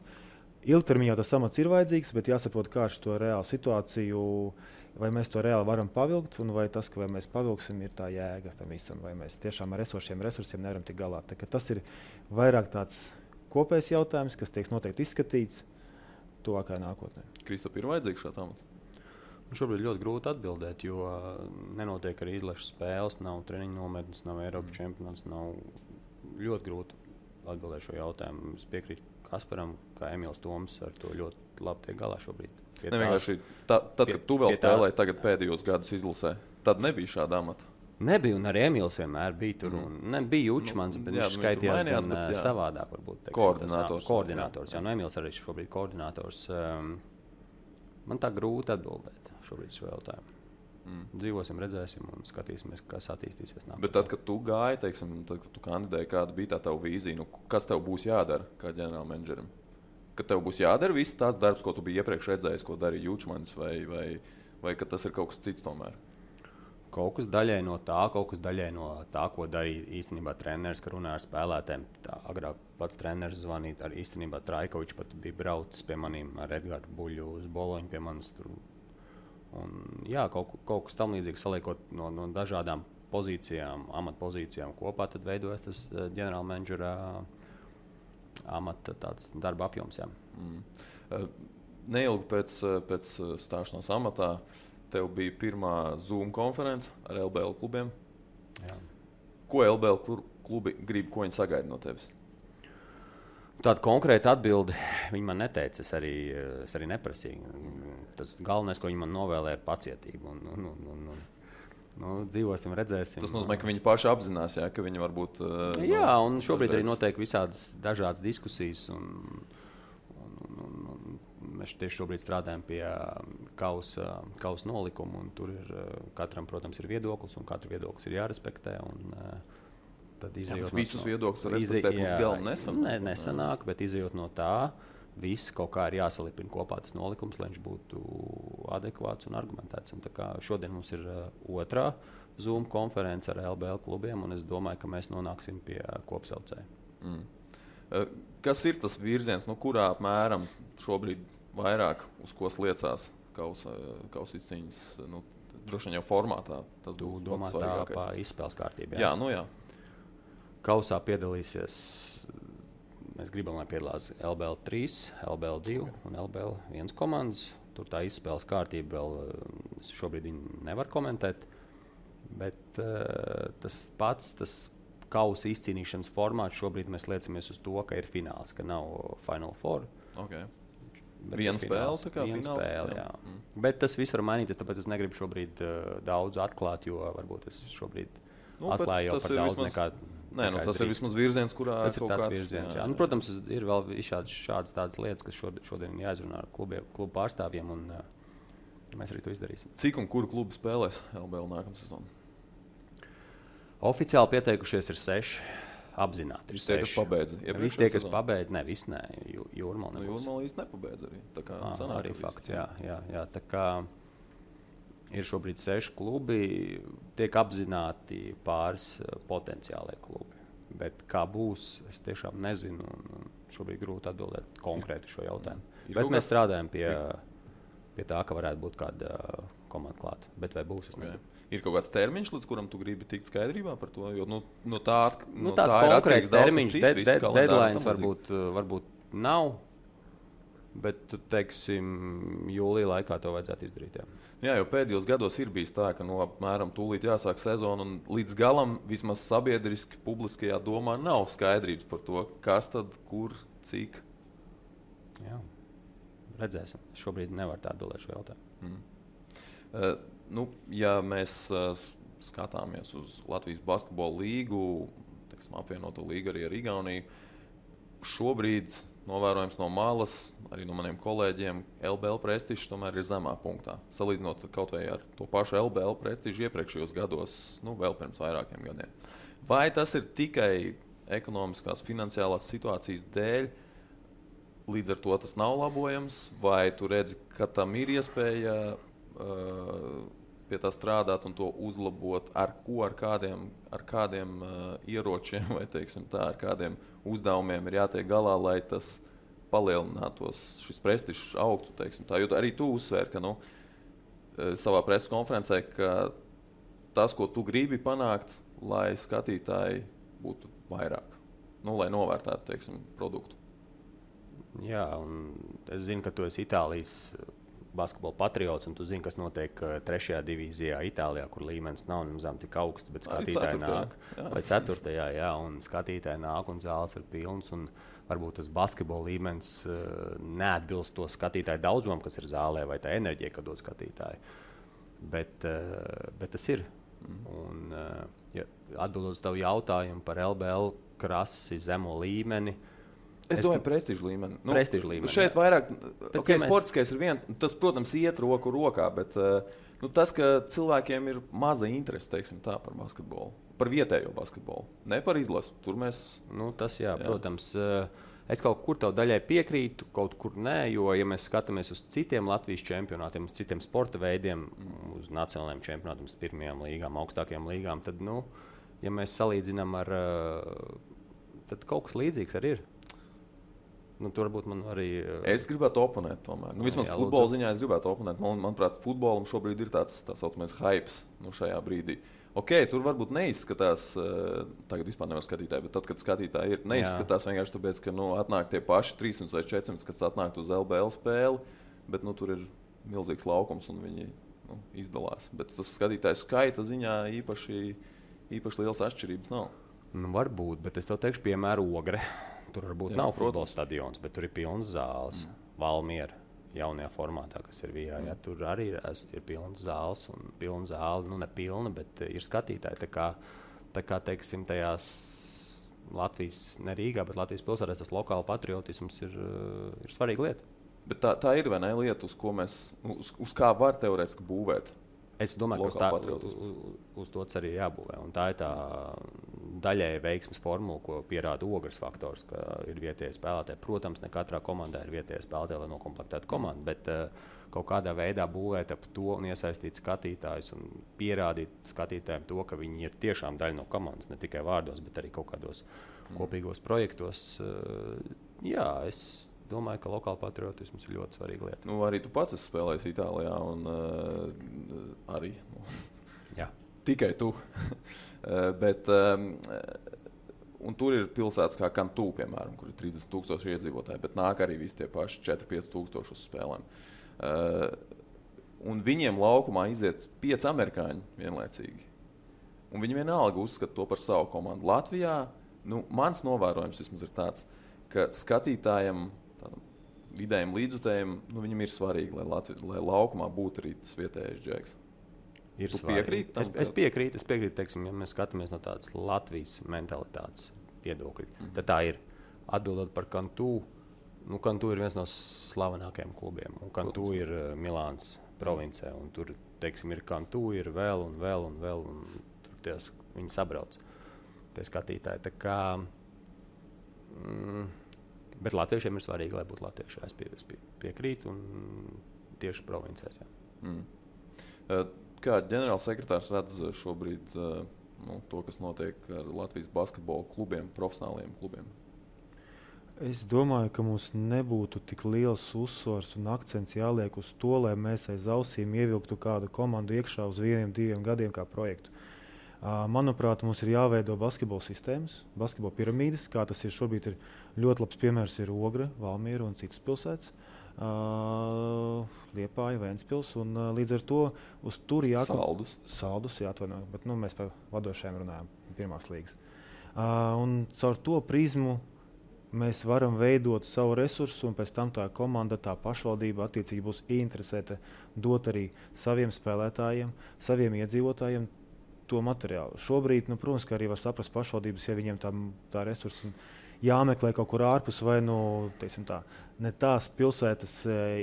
ilgtermiņā tas amats ir vajadzīgs, bet jāsaprot, kā ar to reālu situāciju, vai mēs to reāli varam pavilkt, un vai tas, ka vai mēs pavilksim, ir tā jēga tam visam, vai mēs tiešām ar esošiem resursiem nevaram tik galā. Tas ir vairāk tāds kopējs jautājums, kas tiek noteikti izskatīts tuvākajā nākotnē. Kristap, ir vajadzīgs šāds amats? Šobrīd ļoti grūti atbildēt, jo nenotiek arī izlases spēles, nav treniņu nometnes, nav Eiropas čempionāts. Nav ļoti grūti atbildēt šo jautājumu. Es piekrītu Kasparam, kā Emīls Toms ar to ļoti labi tiek galā šobrīd. Tad, kad tu vēl spēlēji tagad pēdējos gadus izlasē, tad nebija šāda amata. Nebija, un arī Emīls vienmēr bija tur. Nebija Jučmans, bet viņš skaitījās gan savādāk. Varbūt, koordinators. Jā, Emīls arī šobrīd koordinators. Man tā grūti atbildēt šobrīd šo jautājumu. Dzīvosim, redzēsim un skatīsimies, kas attīstīsies nākotnē. Bet tad, kad tu gāji, teiksim, tad, kad tu kandidēji, kāda bija tā tava vīzija, kas tev būs jādara kā ģenerālmenedžerim? Kad tev būs jādara viss tās darbs, ko tu biji iepriekš redzējis, ko darīja Jučmans, vai ka tas ir kaut kas cits tomēr? Kaut kas daļai no tā, ko darīja īstenībā treneris, ka runāja ar spēlētājiem. Agrāk pats treneris zvanīja, arī īstenībā Traikovičs pat bija braucis pie maniem ar Edgārdu Buļļu uz Boloņu pie manis tur. Un, jā, kaut kas tam līdzīgs saliekot no dažādām pozīcijām, amatpozīcijām kopā, tad veidojas tas ģenerālmenedžera amata tāds darba apjoms. Jā. Neilgi pēc stāšanās amatā tev bija pirmā Zoom konference ar LBL klubiem. Jā. Ko LBL klubi grib, ko viņi sagaida no tevis? Tāda konkrēta atbilde viņi man neteica. Es arī neprasīju. Tas galvenais, ko viņi man novēlēja, ir pacietība. Dzīvosim, redzēsim. Tas nozīmē, ka viņi paši apzinās, jā, ka viņi varbūt. Jā, un šobrīd arī notiek visādas dažādas diskusijas. Mēs tieši šobrīd strādājam pie kausa nolikuma. Tur ir katram, protams, ir viedoklis, un katra viedoklis ir jārespektē. Tad visus viedokļus respektēt līdz galam nesanāk. Nesanāk, bet izejot no tā, viss kaut kā ir jāsalipina kopā tas nolikums, lai viņš būtu adekvāts un argumentēts. Un šodien mums ir otrā Zoom konference ar LBL klubiem, un es domāju, ka mēs nonāksim pie kopsaucēja. Kas ir tas virziens, kurā apmēram šobrīd vairāk uz ko liecās kausa izcīņas? Droši vien jau formātā tas būtu domāt tā pa izspēles kārtību. Jā. Kausā piedalīsies, mēs gribam, lai piedalās LBL 3, LBL 2 un LBL 1 komandas. Tur tā izspēles kārtība vēl šobrīd nevar komentēt, bet tas kausa izcīnīšanas formāts šobrīd mēs liecamies uz to, ka ir fināls, ka nav Final Four. Okay. Viena spēle, fināls, jā. Bet tas viss var mainīties, tāpēc es negribu šobrīd daudz atklāt, jo varbūt es šobrīd atklāju jau par daudz nekā. Tas ir vismaz virziens, kurā tas ir tāds virziens. Jā. Protams, ir vēl šādas tādas lietas, kas šodien jāizrunā ar klubu pārstāvjiem, un mēs arī to izdarīsim. Cik un kuru klubu spēlēs LBL nākamā sezona? Oficiāli pieteikušies ir 6. Apzināti. Visi tie, kas pabeidza. Visi tie, kas pabeidza, viss nē. Jūrmala nebūs. Jūrmala īsti nepabeidza arī. Tā kā sanāk, arī fakts, jā. Tā kā ir šobrīd 6 klubi, tiek apzināti pāris potenciālie klubi. Bet kā būs, es tiešām nezinu. Šobrīd grūti atbildēt konkrēti šo jautājumu. Bet mēs strādājam pie tā, ka varētu būt kāda komanda klāta. Bet vai būs, es nezinu. Ir kaut kāds termiņš, līdz kuram tu gribi tikt skaidrībā par to? Jo tā tāds konkrēts termiņš, deadlines varbūt nav. Bet, teiksim, jūlijā laikā to vajadzētu izdarīt. Jā, jo pēdējos gados ir bijis tā, ka apmēram tūlīt jāsāk sezona, un līdz galam vismaz sabiedriski, publiskajā domā nav skaidrības par to, kas tad, kur, cik. Jā, redzēsim. Šobrīd nevar tā atbildēt šo jautājumu. Ja mēs skatāmies uz Latvijas basketbola līgu, apvienoto līgu arī ar Igauniju, šobrīd novērojams no malas, arī no maniem kolēģiem, LBL prestižs tomēr ir zemā punktā. Salīdzinot kaut vai ar to pašu LBL prestižu iepriekšējos gados, vēl pirms vairākiem gadiem. Vai tas ir tikai ekonomiskās, finansiālās situācijas dēļ, līdz ar to tas nav labojams, vai tu redzi, ka tam ir iespēja pie tā strādāt un to uzlabot, ar kādiem ieročiem vai ar kādiem uzdevumiem ir jātiek galā, lai tas palielinātos, šis prestižs augtu. Jo arī tu uzsvēri, ka savā preses konferencē, ka tas, ko tu gribi panākt, lai skatītāji būtu vairāk, lai novērtētu produktu. Jā, un es zinu, ka tu esi Itālijas basketbola patriots, un tu zini, kas notiek 3. divīzijā Itālijā, kur līmenis nav nemazām tik augsts, bet skatītāji nāk. Vai 4. jā, un skatītāji nāk, un zāles ir pilnas, un varbūt tas basketbola līmenis neatbilst to skatītāju daudzumam, kas ir zālē, vai tā enerģija, kad dod skatītāji. Bet tas ir. Un, atbildot uz tavu jautājumu par LBL krasi zemo līmeni, es domāju, prestižu līmeni. Prestižu līmeni. Šeit vairāk, sportiskais ir viens, tas, protams, iet roku rokā, bet tas, ka cilvēkiem ir maza interese, par basketbolu, par vietējo basketbolu, ne par izlasi. Tur mēs... Tas, jā, protams, es kaut kur tev daļai piekrītu, kaut kur nē, jo, ja mēs skatāmies uz citiem Latvijas čempionātiem, uz citiem sporta veidiem, uz nacionālajiem čempionātiem, uz pirmajām līgām, augstākajām līgām, tad, ja mēs salīdzinām ar, tad kaut kas līdzīgs arī ir. Tur varbūt man arī... Es gribētu oponēt tomēr. Vismaz futbola ziņā es gribētu oponēt. Manuprāt, futbolam šobrīd ir tāds tā saucamais hypes šajā brīdī. Tur varbūt neizskatās, tagad vispār nevar skatītāji, bet tad, kad skatītāji ir, neizskatās vienkārši tāpēc, ka atnāk tie paši 300 vai 400, kas atnāk uz LBL spēli, bet tur ir milzīgs laukums un viņi izdalās. Bet tas skatītāju skaita ziņā īpaši liels atšķirības nav. Varbūt, bet es tev teikšu piemēru Ogre. Tur varbūt nav futbola stadions, bet tur ir pilns zāles. Valmiera jaunajā formātā, kas ir VIA. Tur arī ir pilns zāles un pilna zāle, ne pilna, bet ir skatītāji. Tā kā teiksim, tajās Latvijas, ne Rīgā, bet Latvijas pilsētās tas lokāla patriotisms ir svarīga lieta. Bet tā ir vai ne lieta, uz kā var teorētiski būvēt? Es domāju, ka uz to arī jābūvē. Un tā ir tā daļēji veiksmes formula, ko pierāda Ogres faktors, ka ir vietējie spēlētāji. Protams, ne katrā komandā ir vietējie spēlētāji, lai nokomplektētu komandu, bet kaut kādā veidā būvēt ap to un iesaistīt skatītājus un pierādīt skatītājiem to, ka viņi ir tiešām daļa no komandas, ne tikai vārdos, bet arī kaut kādos kopīgos projektos. Jā, es domāju, ka lokāla patriotisms ir ļoti svarīga lieta. Arī tu pats esi spēlējis Itālijā un arī tikai tu. Bet, un tur ir pilsētas kā Kantū, piemēram, kur ir 30,000 iedzīvotāji, bet nāk arī visi tie paši 4-5,000 uz spēlēm. Un viņiem laukumā iziet 5 amerikāņi vienlaicīgi. Un viņi vienalga uzskata to par savu komandu. Latvijā, mans novērojums vismaz ir tāds, ka skatītājiem, vidējiem līdzjutējiem, viņam ir svarīgi, lai laukumā būtu arī tas vietējais džeks. Tu piekrīti tam? Es piekrītu, teiksim, ja mēs skatāmies no tādas Latvijas mentalitātes viedokļa. Tad tā ir atbildot par Kantū. Kantū ir viens no slavenākajiem klubiem. Un Kantū ir Milāns provincē. Un tur, teiksim, ir Kantū, ir vēl. Un tur viņi sabrauc. Tie skatītāji. Tā kā... Bet latviešiem ir svarīgi, lai būtu latvieši. Es piekrītu un tieši provincēs. Kā ģenerālsekretārs redz šobrīd to, kas notiek ar Latvijas basketbola klubiem, profesionāliem klubiem? Es domāju, ka mums nebūtu tik liels uzsvars un akcents jāliek uz to, lai mēs aiz ausīm ievilktu kādu komandu iekšā uz 1-2 gadiem kā projektu. Manuprāt, mums ir jāveido basketbola sistēmas, basketbola piramīdas, kā tas ir šobrīd. Ir ļoti labs piemērs ir Ogre, Valmiera un citas pilsētas. Liepāja, Ventspils, un līdz ar to uz turi Saldus, jāatvainojas, bet mēs par vadošajiem runājam, pirmās līgas. Un caur to prizmu mēs varam veidot savu resursu, un pēc tam tā komanda, tā pašvaldība attiecīgi būs interesēta dot arī saviem spēlētājiem, saviem iedzīvotājiem to materiālu. Šobrīd, protams, ka arī var saprast pašvaldības, ja viņiem tā resursa jāmeklē kaut kur ārpus, vai ne tās pilsētas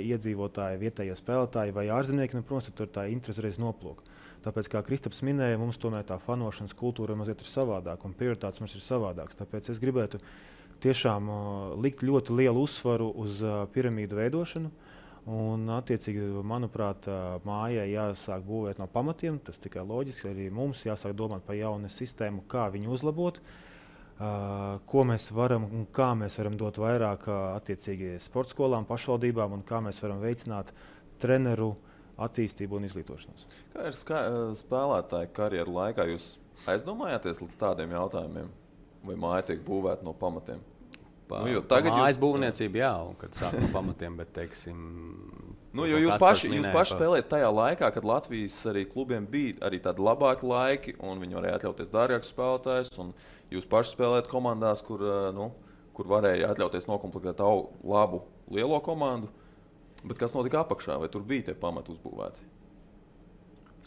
iedzīvotāji, vietējie spēlētāji vai ārzemnieki, protams, tur tā interese reiz noplūk. Tāpēc, kā Kristaps minēja, mums tomēr tā fanošanas kultūra mazliet ir savādāka un prioritātes mums ir savādākas. Tāpēc es gribētu tiešām likt ļoti lielu uzsvaru uz piramīdu veidošanu. Un, attiecīgi, manuprāt, mājai jāsāk būvēt no pamatiem. Tas tikai loģiski. Arī mums jāsāk domāt par jaunu sistēmu, kā viņu uzlabot, ko mēs varam un kā mēs varam dot vairāk attiecīgi sporta skolām, pašvaldībām un kā mēs varam veicināt treneru attīstību un izglītošanos. Kā ir spēlētāja karjeru laikā? Jūs aizdomājāties līdz tādiem jautājumiem? Vai māja tiek būvēta no pamatiem? Mājas būvniecība, jā, un kad sāk no pamatiem, bet, teiksim... Jūs paši spēlējat tajā laikā, kad Latvijas arī klubiem bija arī tādi labāki laiki, un viņi varēja atļauties dārgākus spēlētājus, un jūs paši spēlējat komandās, kur varēja atļauties nokomplektēt labu lielo komandu. Bet kas notika apakšā? Vai tur bija tie pamati uzbūvēti?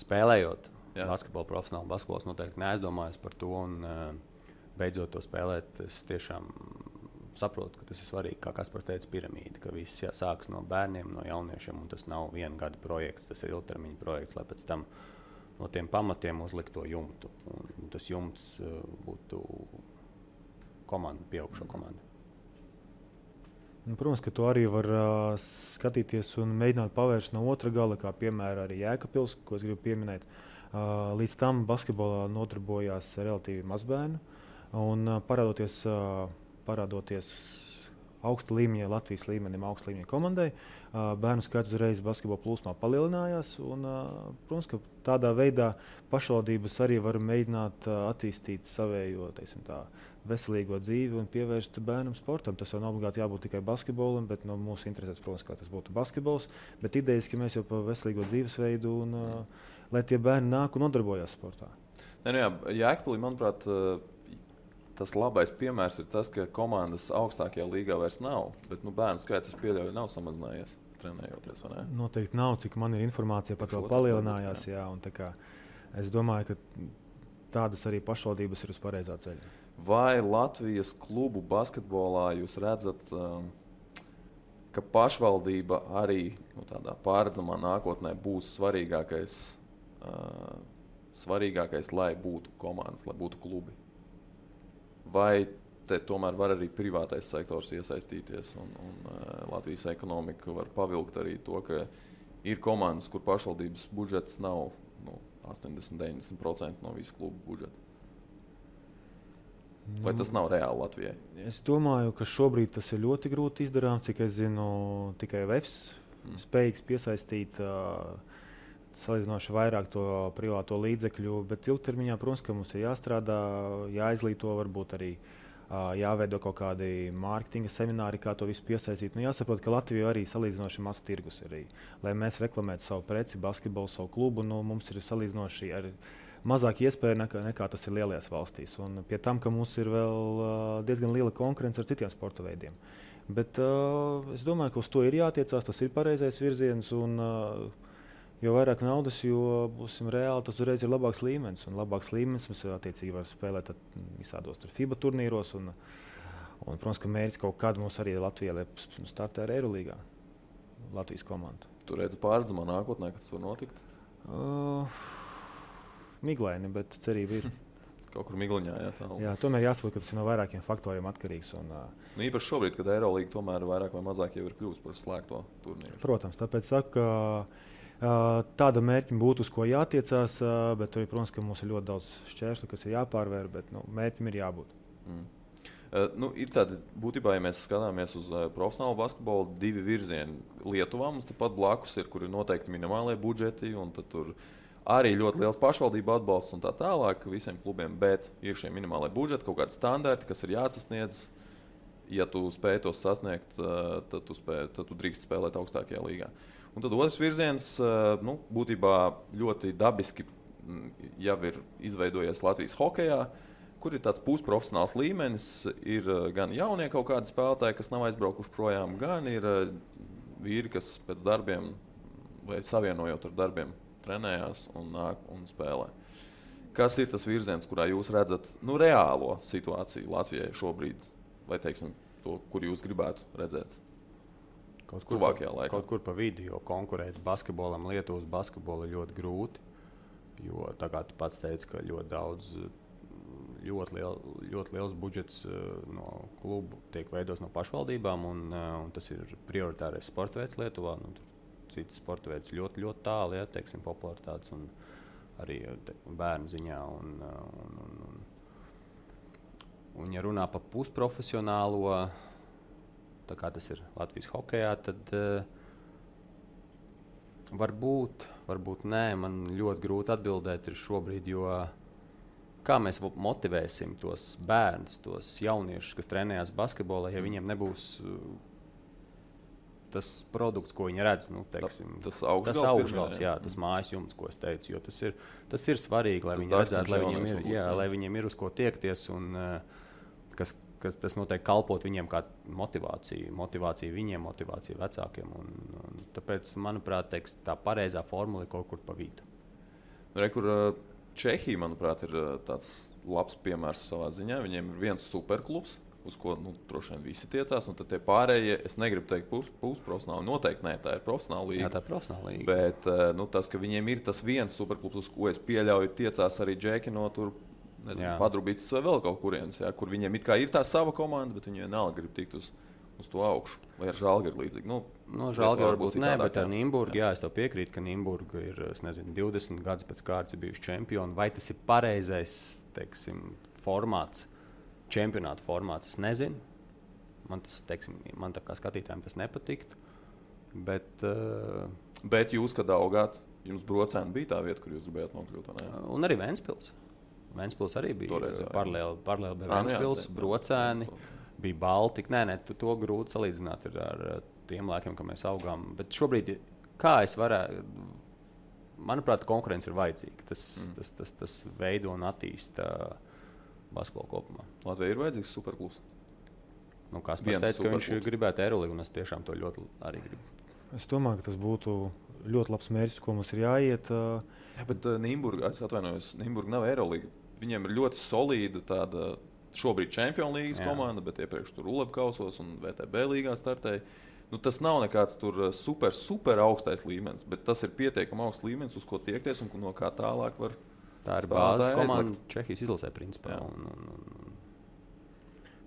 Spēlējot basketbolu, profesionāli basketbols noteikti neaizdomājas par to, un beidzot to spēlēt, es tiešām saprotu, ka tas ir svarīgi, kā Kaspars teica, piramīda, ka viss sākas no bērniem, no jauniešiem, un tas nav viena gada projekts, tas ir ilgtermiņa projekts, lai pēc tam no tiem pamatiem uzlikt to jumtu. Un tas jumts būtu komanda, pieaugšo komandu. Protams, ka to arī var skatīties un mēģināt pavērst no otra gala, kā piemēram arī Jēkabpils, ko es gribu pieminēt. Līdz tam basketbolā nodarbojās relatīvi maz bērnu, un parādoties augsta līmeņa, Latvijas līmenim, augsta līmeņa komandai, bērnu skaits uzreiz basketbola plūsmā palielinājās. Un, protams, ka tādā veidā pašvaldības arī var mēģināt attīstīt savējo, veselīgo dzīvi un pievērst bērnam sportam. Tas jau nav obligāti jābūt tikai basketbolam, bet no mūsu interesēs, protams, kā tas būtu basketbols. Bet idejiski mēs jau par veselīgo dzīvesveidu un lai tie bērni nāk un nodarbojās sportā. Jēkabpilī, manuprāt, tas labais piemērs ir tas, ka komandas augstākajā līgā vairs nav, bet bērnu skaits, es pieļauju, nav samazinājies trenējoties, vai ne? Noteikti nav, cik man ir informācija par to palielinājās. Jā, un es domāju, ka tādas arī pašvaldības ir uz pareizā ceļa. Vai Latvijas klubu basketbolā jūs redzat, ka pašvaldība arī tādā pārredzamā nākotnē būs svarīgākais, lai būtu komandas, lai būtu klubi? Vai te tomēr var arī privātais sektors iesaistīties un Latvijas ekonomika var pavilkt arī to, ka ir komandas, kur pašvaldības budžets nav 80–90% no visu klubu budžeta? Vai tas nav reāli Latvijai? Es domāju, ka šobrīd tas ir ļoti grūti izdarām, cik es zinu, tikai VEFS spējīgs piesaistīt salīdzinoši vairāk to privāto līdzekļu, bet ilgtermiņā, protams, ka mums ir jāstrādā, jāizglīto, varbūt arī jāveido kaut kādi mārketinga semināri, kā to visu piesaistīt. Jāsaprot, ka Latvija arī salīdzinoši maz tirgus ir. Lai mēs reklamētu savu preci, basketbolu, savu klubu, mums ir salīdzinoši ar mazāk iespēja nekā tas ir lielajās valstīs. Un pie tam, ka mums ir vēl diezgan liela konkurence ar citiem sporta veidiem. Bet es domāju, ka uz to ir jātiecās, tas ir pareizais virziens. Un, jo vairāk naudas, jo būsim reāli, tas uzreiz ir labāks līmenis. Un labāks līmenis mums attiecīgi var spēlēt visādos FIBA turnīros. Un, protams, ka mērķis kaut kādu mums arī Latvijā startē ar Eirolīgā. Latvijas komandu. Tu redzi pārredzamā nākotnē, kad tas var notikt? Miglaini, bet cerība ir. Kaut kur migliņā, jā, tomēr jāsaprot, ka tas ir no vairākiem faktoriem atkarīgs. Un, īpaši šobrīd, kad Eirolīga tomēr vairāk vai mazāk jau ir kļuvusi par slēgto turnīru. Protams, tāpēc saku, ka tāda mērķa būtu, uz ko jātiecās, bet arī, protams, ka mums ir ļoti daudz šķēršļu, kas ir jāpārvēr, bet mērķim ir jābūt. Ir tādi, būtībā, ja mēs skatāmies uz profesionālu basketbolu, divi virzieni. Lietuvā mums tepat blakus ir, kur ir noteikti minimālie budžeti, un tad tur arī ļoti liels pašvaldību atbalsts un tā tālāk visiem klubiem, bet ir šie minimālie budžeti, kaut kādi standarti, kas ir jāsasniedz. ja tu spēj tos sasniegt, tad tu drīkst spēlēt augstākajā līgā. Un tad otrs virziens, būtībā ļoti dabiski jau ir izveidojies Latvijas hokejā, kur ir tāds pusprofesionāls līmenis. Ir gan jaunie kaut kādi spēlētāji, kas nav aizbraukuši projām, gan ir vīri, kas pēc darbiem vai savienojot ar darbiem trenējās un nāk un spēlē. Kas ir tas virziens, kurā jūs redzat reālo situāciju Latvijai šobrīd, vai teiksim, to, kur jūs gribētu redzēt? Kaut kur pa vidu, jo konkurēt basketbolam, Lietuvas basketbolu ir ļoti grūti. Jo tā kā tu pats teici, ka ļoti daudz, ļoti liels budžets no klubu tiek veidots no pašvaldībām, un tas ir prioritārais sporta veids Lietuvā. Cits sporta veids ļoti, ļoti tālu, ja, teiksim, popularitātes un arī bērnu ziņā. Un ja runā par pusprofesionālo, tā kā tas ir Latvijas hokejā, tad varbūt nē, man ļoti grūti atbildēt ir šobrīd, jo kā mēs motivēsim tos bērnus, tos jauniešus, kas trenējās basketbolā, ja viņiem nebūs tas produkts, ko viņi redz, tas augšgals, tas mājas jumts, ko es teicu, jo tas ir svarīgi, lai viņi redzētu, lai viņiem ir uz ko tiekties un kas tas noteikti kalpot viņiem kā motivācija viņiem, motivācija vecākiem. Un tāpēc, manuprāt, tā pareizā formula ir kaut kur pa vidu. Čehija, manuprāt, ir tāds labs piemērs savā ziņā. Viņiem ir viens superklubs, uz ko droši vien visi tiecās, un tad tie pārējie, es negribu teikt pusprofesionāli, noteikti nē, tā ir profesionāla līga. Jā, tā ir profesionāla līga. Bet tas, ka viņiem ir tas viens superklubs, uz ko es pieļauju, tiecās arī džeki no tur, Padrubītis vai vēl kaut kurienes, kur viņiem it kā ir tā sava komanda, bet viņi vienalga grib tikt uz to augšu. Vai ar Žalgiru līdzīgi? Žalgiru varbūt nē, bet ar Nīmburgu, es tev piekrītu, ka Nīmburga ir, 20 gadus pēc kārtas ir bijuši čempioni. Vai tas ir pareizais, teiksim, formāts, čempionāta formāts, es nezinu. Man tā kā skatītājiem tas nepatiktu. Bet jūs, kad augāt, jums Brocēni bija tā vieta, kur jūs gribējāt nokļūt, vai ne? Un arī Ventspils. Ventspils arī bija paralēli bija Ventspils, Brocēni, bija Baltika. Nē, to grūti salīdzināt ar tiem laikiem, kad mēs augām. Bet šobrīd, kā es varētu, manuprāt, konkurence ir vajadzīga. Tas veido un attīsta basketbolu kopumā. Latvijai ir vajadzīgs superklubs? Kāspars teica, ka viņš gribētu Eirolīgu, un es tiešām to ļoti arī gribu. Es domāju, ka tas būtu ļoti labs mērķis, ko mums ir jāiet. Bet Nīmburga, es atvainojos, Nīmburga nav Eirolīga. Viņiem ir ļoti solīda tāda šobrīd Čempionu līgas komanda, bet iepriekš tur Ulebkausos un VTB līgā startēja. Tas nav nekāds tur super augstais līmenis, bet tas ir pietiekami augsts līmenis, uz ko tiekties un no kā tālāk var. Tā ir bāzes komanda Čehijas izlasē principā.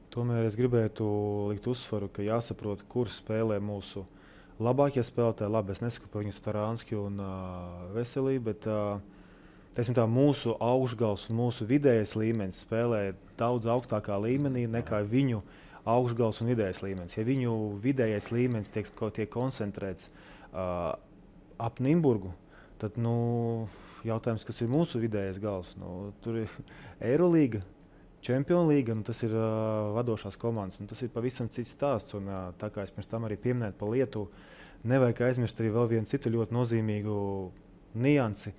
Tomēr es gribētu likt uzsvaru, ka jāsaprot, kur spēlē mūsu labākie spēlētāji. Labi, es nesaku par viņu Starānski un Veselību, bet mūsu augšgals un mūsu vidējais līmenis spēlē daudz augstākā līmenī nekā viņu augšgals un vidējais līmenis. Ja viņu vidējais līmenis tiek koncentrēts ap Nīmburgu, tad jautājums, kas ir mūsu vidējais gals. Tur ir Eirolīga, Čempionu līga, tas ir vadošās komandas. Tas ir pavisam cits stāsts. Un, tā kā es pirms tam arī pieminēju par Lietuvu, nevajag aizmirst arī vēl vienu citu ļoti nozīmīgu niansi,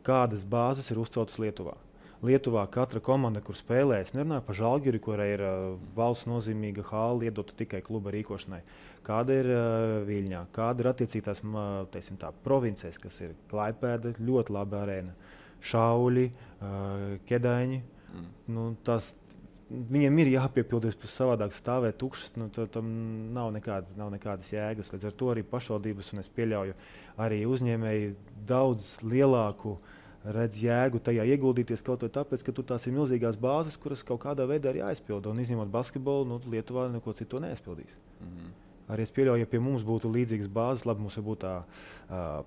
kādas bāzes ir uzceltas Lietuvā. Lietuvā katra komanda, kur spēlē, es nerunāju par Žalgiri, kurai ir valsts nozīmīga hāla iedota tikai kluba rīkošanai. Kāda ir Viļņā, kāda ir attiecīgās provincēs, kas ir Klaipēda, ļoti laba arēna, Šauļi, Kedaiņi. Viņiem ir jāpiepildies, pēc savādāk stāvēt tukšas, tam nav nekādas jēgas. Līdz ar to arī pašvaldības, un es pieļauju, arī uzņēmēji daudz lielāku redz jēgu tajā ieguldīties kaut vai tāpēc, ka tur tās ir milzīgās bāzes, kuras kaut kādā veidā ir jāizpilda. Un izņemot basketbolu, Lietuvā neko citu neaizpildīs. Arī es pieļauju, ja pie mums būtu līdzīgas bāzes, labi, mums būtu tā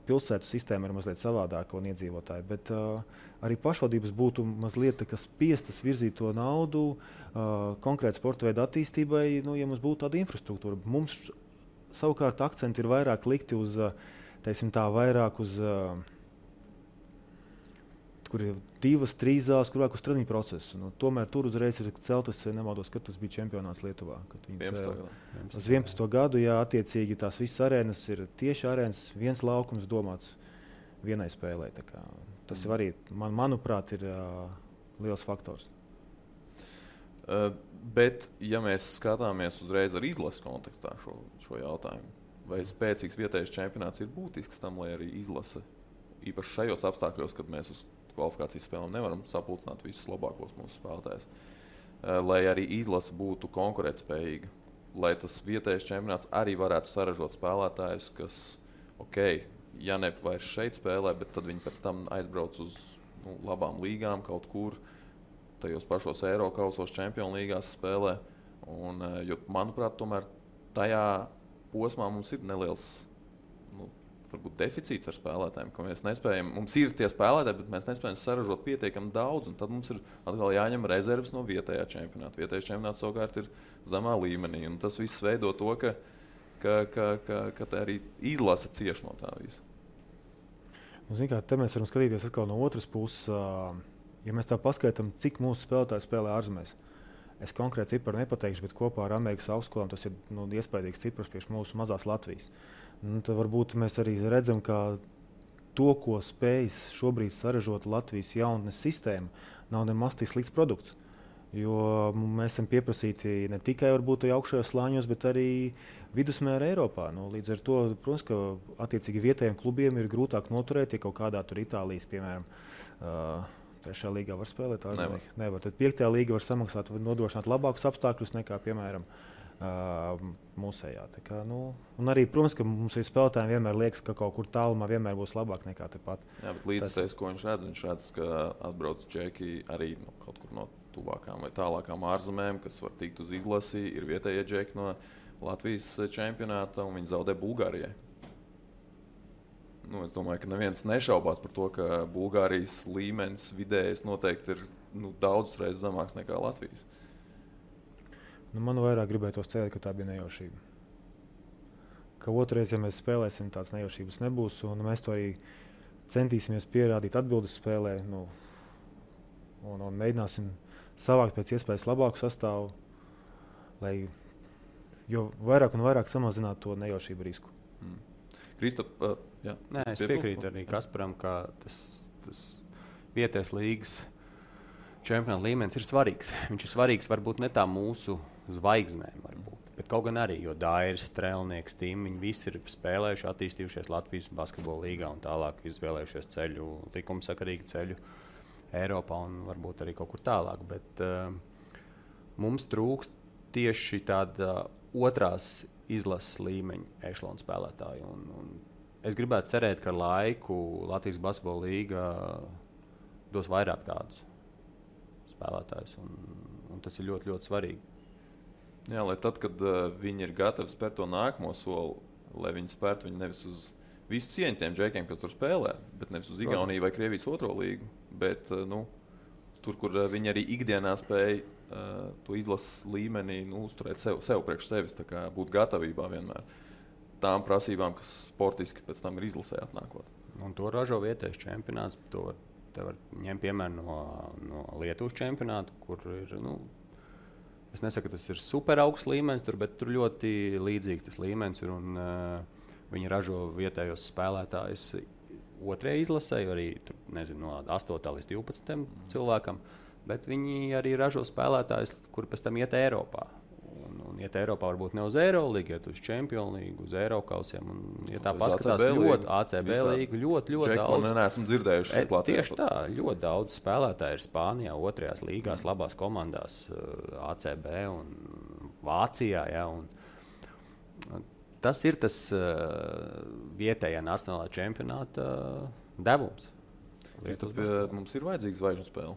pilsētu sistēma ir mazliet savādāka un iedzīvotāji, bet arī pašvaldības būtu mazliet spiestas virzīt to naudu konkrēti sporta veidu attīstībai, ja mums būtu tāda infrastruktūra. Mums savukārt akcenti ir vairāk likti uz, vairāk uz kur ir 2-3 zāles, kur vajag uz treniņu procesu. Nu, tomēr tur uzreiz ir celtas, nemaldos, kad tas bija čempionāts Lietuvā. Uz 11. gadu, jā, attiecīgi tās visas arēnas ir tieši arēnas, viens laukums domāts vienai spēlē. Tas arī, manuprāt, ir liels faktors. Bet, ja mēs skatāmies uzreiz ar izlases kontekstā šo jautājumu, vai spēcīgs vietējais čempionāts ir būtisks tam, lai arī izlase, īpaši šajos apstākļos, kad mēs uz kvalifikācijas spēlēm nevaram sapulcināt visus labākos mūsu spēlētājus, lai arī izlase būtu konkurētspējīga, lai tas vietējais čempionāts arī varētu saražot spēlētājus, kas, ja ne vairs šeit spēlē, bet tad viņi pēc tam aizbrauc uz labām līgām kaut kur, tajos pašos Eirokausos, Čempionu līgās spēlē. Jo, manuprāt, tomēr tajā posmā mums ir neliels varbūt deficīts ar spēlētājiem, ka mēs nespējam, mums ir tie spēlētāji, bet mēs nespējam saražot pietiekami daudz, un tad mums ir atkal jāņem rezerves no vietējā čempionāta. Vietējais čempionāts savukārt ir zemā līmenī, un tas viss veido to, ka arī izlase cieš no tā visa. Te mēs varam skatīties atkal no otras puses. Ja mēs tā paskaitām, cik mūsu spēlētāji spēlē ārzemēs, es konkrēti ciparu nepateikšu, bet kopā ar Amerikas augstskolām tas ir iespaidīgs cipars priekš mūsu mazās Latvijas. Tad varbūt mēs arī redzam, ka to, ko spējas šobrīd saražot Latvijas jaunatnes sistēma, nav nemaz tik slikts produkts. Jo mēs esam pieprasīti ne tikai augšējos slāņos, bet arī vidusmēra Eiropā. Līdz ar to, protams, ka attiecīgi vietējiem klubiem ir grūtāk noturēt, ja kaut kādā tur Itālijas, piemēram, 3. līgā var spēlēt. Nevar. Tad 5. līga var samaksāt, nodrošināt labākus apstākļus nekā, piemēram, mūsējā. Un arī, protams, ka mums ir spēlētājiem vienmēr liekas, ka kaut kur tālumā vienmēr būs labāk nekā tepat. Jā, bet līdztais, ko viņš redz, ka atbrauc džeki arī kaut kur no tuvākām vai tālākām ārzemēm, kas var tikt uz izlasi, ir vietējie džeki no Latvijas čempionāta, un viņi zaudē Bulgārijai. Es domāju, ka neviens nešaubās par to, ka Bulgārijas līmenis vidējais noteikti ir daudz reizes zemāks nekā Latvijas. Man vairāk gribētos cerēt, ka tā bija nejaušība. Ka otrreiz, ja mēs spēlēsim, tādas nejaušības nebūs, un mēs to arī centīsimies pierādīt atbildes spēlē, un mēģināsim savākt pēc iespējas labāku sastāvu, lai jo vairāk un vairāk samazinātu to nejaušību risku. Kristap, es piekrītu arī Kasparam, ka tas vietējais līgas čempionāta līmenis ir svarīgs. Viņš ir svarīgs varbūt ne tā mūsu zvaigznēm, bet kaut gan arī, jo Dairis, Strēlnieks, Tim, viņi visi ir spēlējuši, attīstījušies Latvijas basketbola līgā un tālāk izvēlējušies ceļu, likumsakarīgu ceļu Eiropā un varbūt arī kaut kur tālāk. Bet mums trūkst tieši tāda otrās izlases līmeņa ešalona spēlētāju. Un es gribētu cerēt, ka ar laiku Latvijas basketbola līga dos vairāk tādus spēlētājus, un tas ir ļoti, ļoti svarīgi. Jā, lai tad, kad viņi ir gatavi spērt to nākamo soli, lai viņi spērtu viņu nevis uz visu cieņu tiem džekiem, kas tur spēlē, bet nevis uz Igauniju vai Krievijas otro līgu, bet tur, kur viņi arī ikdienā spēj to izlases līmenī uzturēt sev priekš sevis, tā kā būt gatavībā vienmēr tām prasībām, kas sportiski pēc tam ir izlasē atnākot. Un to ražo vietējais čempionāts. Te var ņemt piemēru no Lietuvas čempionāta, kur ir, es nesaku, ka tas ir super augsts līmenis, bet tur ļoti līdzīgs tas līmenis ir, un viņi ražo vietējos spēlētājus otrajai izlasē, arī tur, no 8. līdz 12. cilvēkam, bet viņi arī ražo spēlētājus, kuri pēc tam iet Eiropā. Un iet Eiropā varbūt ne uz Eirolīgu, iet uz Čempionu līgu, uz Eirokausiem. Ja tā paskatās ļoti ACB līgu, ļoti daudz. Neesam dzirdējuši šeit Latvijā. Tieši tā, ļoti daudz spēlētāji ir Spānijā, otrajās līgās, labās komandās ACB un Vācijā. Ja, un tas ir tas vietējā nacionālā čempionāta devums. Mums ir vajadzīgs zvaigžņu spēle.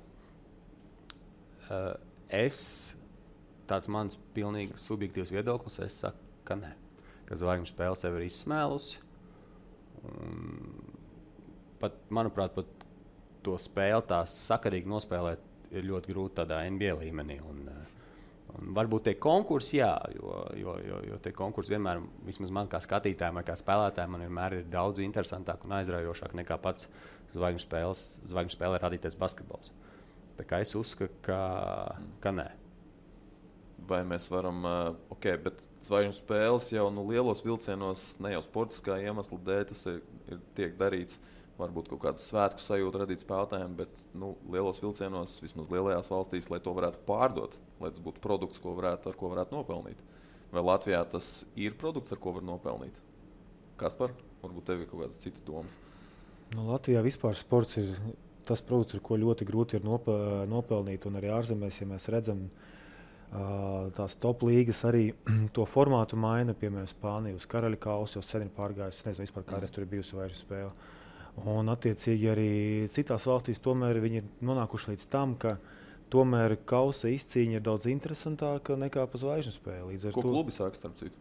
Tāds mans pilnīgi subjektīvs viedoklis, es saku, ka nē. Ka zvaigžņu spēle sev ir izsmēlusi. Manuprāt, pat to spēli tā sakarīgi nospēlēt ir ļoti grūti tādā NBA līmenī. Un varbūt tie konkursi, jā, jo jo tie konkursi vienmēr, vismaz man kā skatītājiem, kā spēlētājiem, man vienmēr ir daudz interesantāk un aizraujošāk nekā pats zvaigžņu spēlē radītais basketbols. Tā kā es uzskatu, ka nē. Vai mēs varam, bet zvaigžņu spēles jau lielos vilcienos, ne jau sportiskā iemesla dēļ, tas tiek darīts. Varbūt kaut kādu svētku sajūtu radīt spēlētājiem, bet lielos vilcienos, vismaz lielajās valstīs, lai to varētu pārdot, lai tas būtu produkts, ar ko varētu nopelnīt. Vai Latvijā tas ir produkts, ar ko var nopelnīt? Kaspar, varbūt tev ir kaut kādas citas domas? Latvijā vispār sports ir tas produkts, ar ko ļoti grūti ir nopelnīt, un arī ārzemēs, ja mēs redzam, tās top līgas arī to formātu maina, piemēram, Spānija uz karaļa kausu, jau sen ir pārgājusi, es nezinu vispār, kādreiz tur ir bijusi zvaigžņu spēle. Un attiecīgi arī citās valstīs tomēr viņi ir nonākuši līdz tam, ka tomēr kausa izcīņa ir daudz interesantāka nekā pa zvaigžņu spēli. Ko klubi saka, starp citu?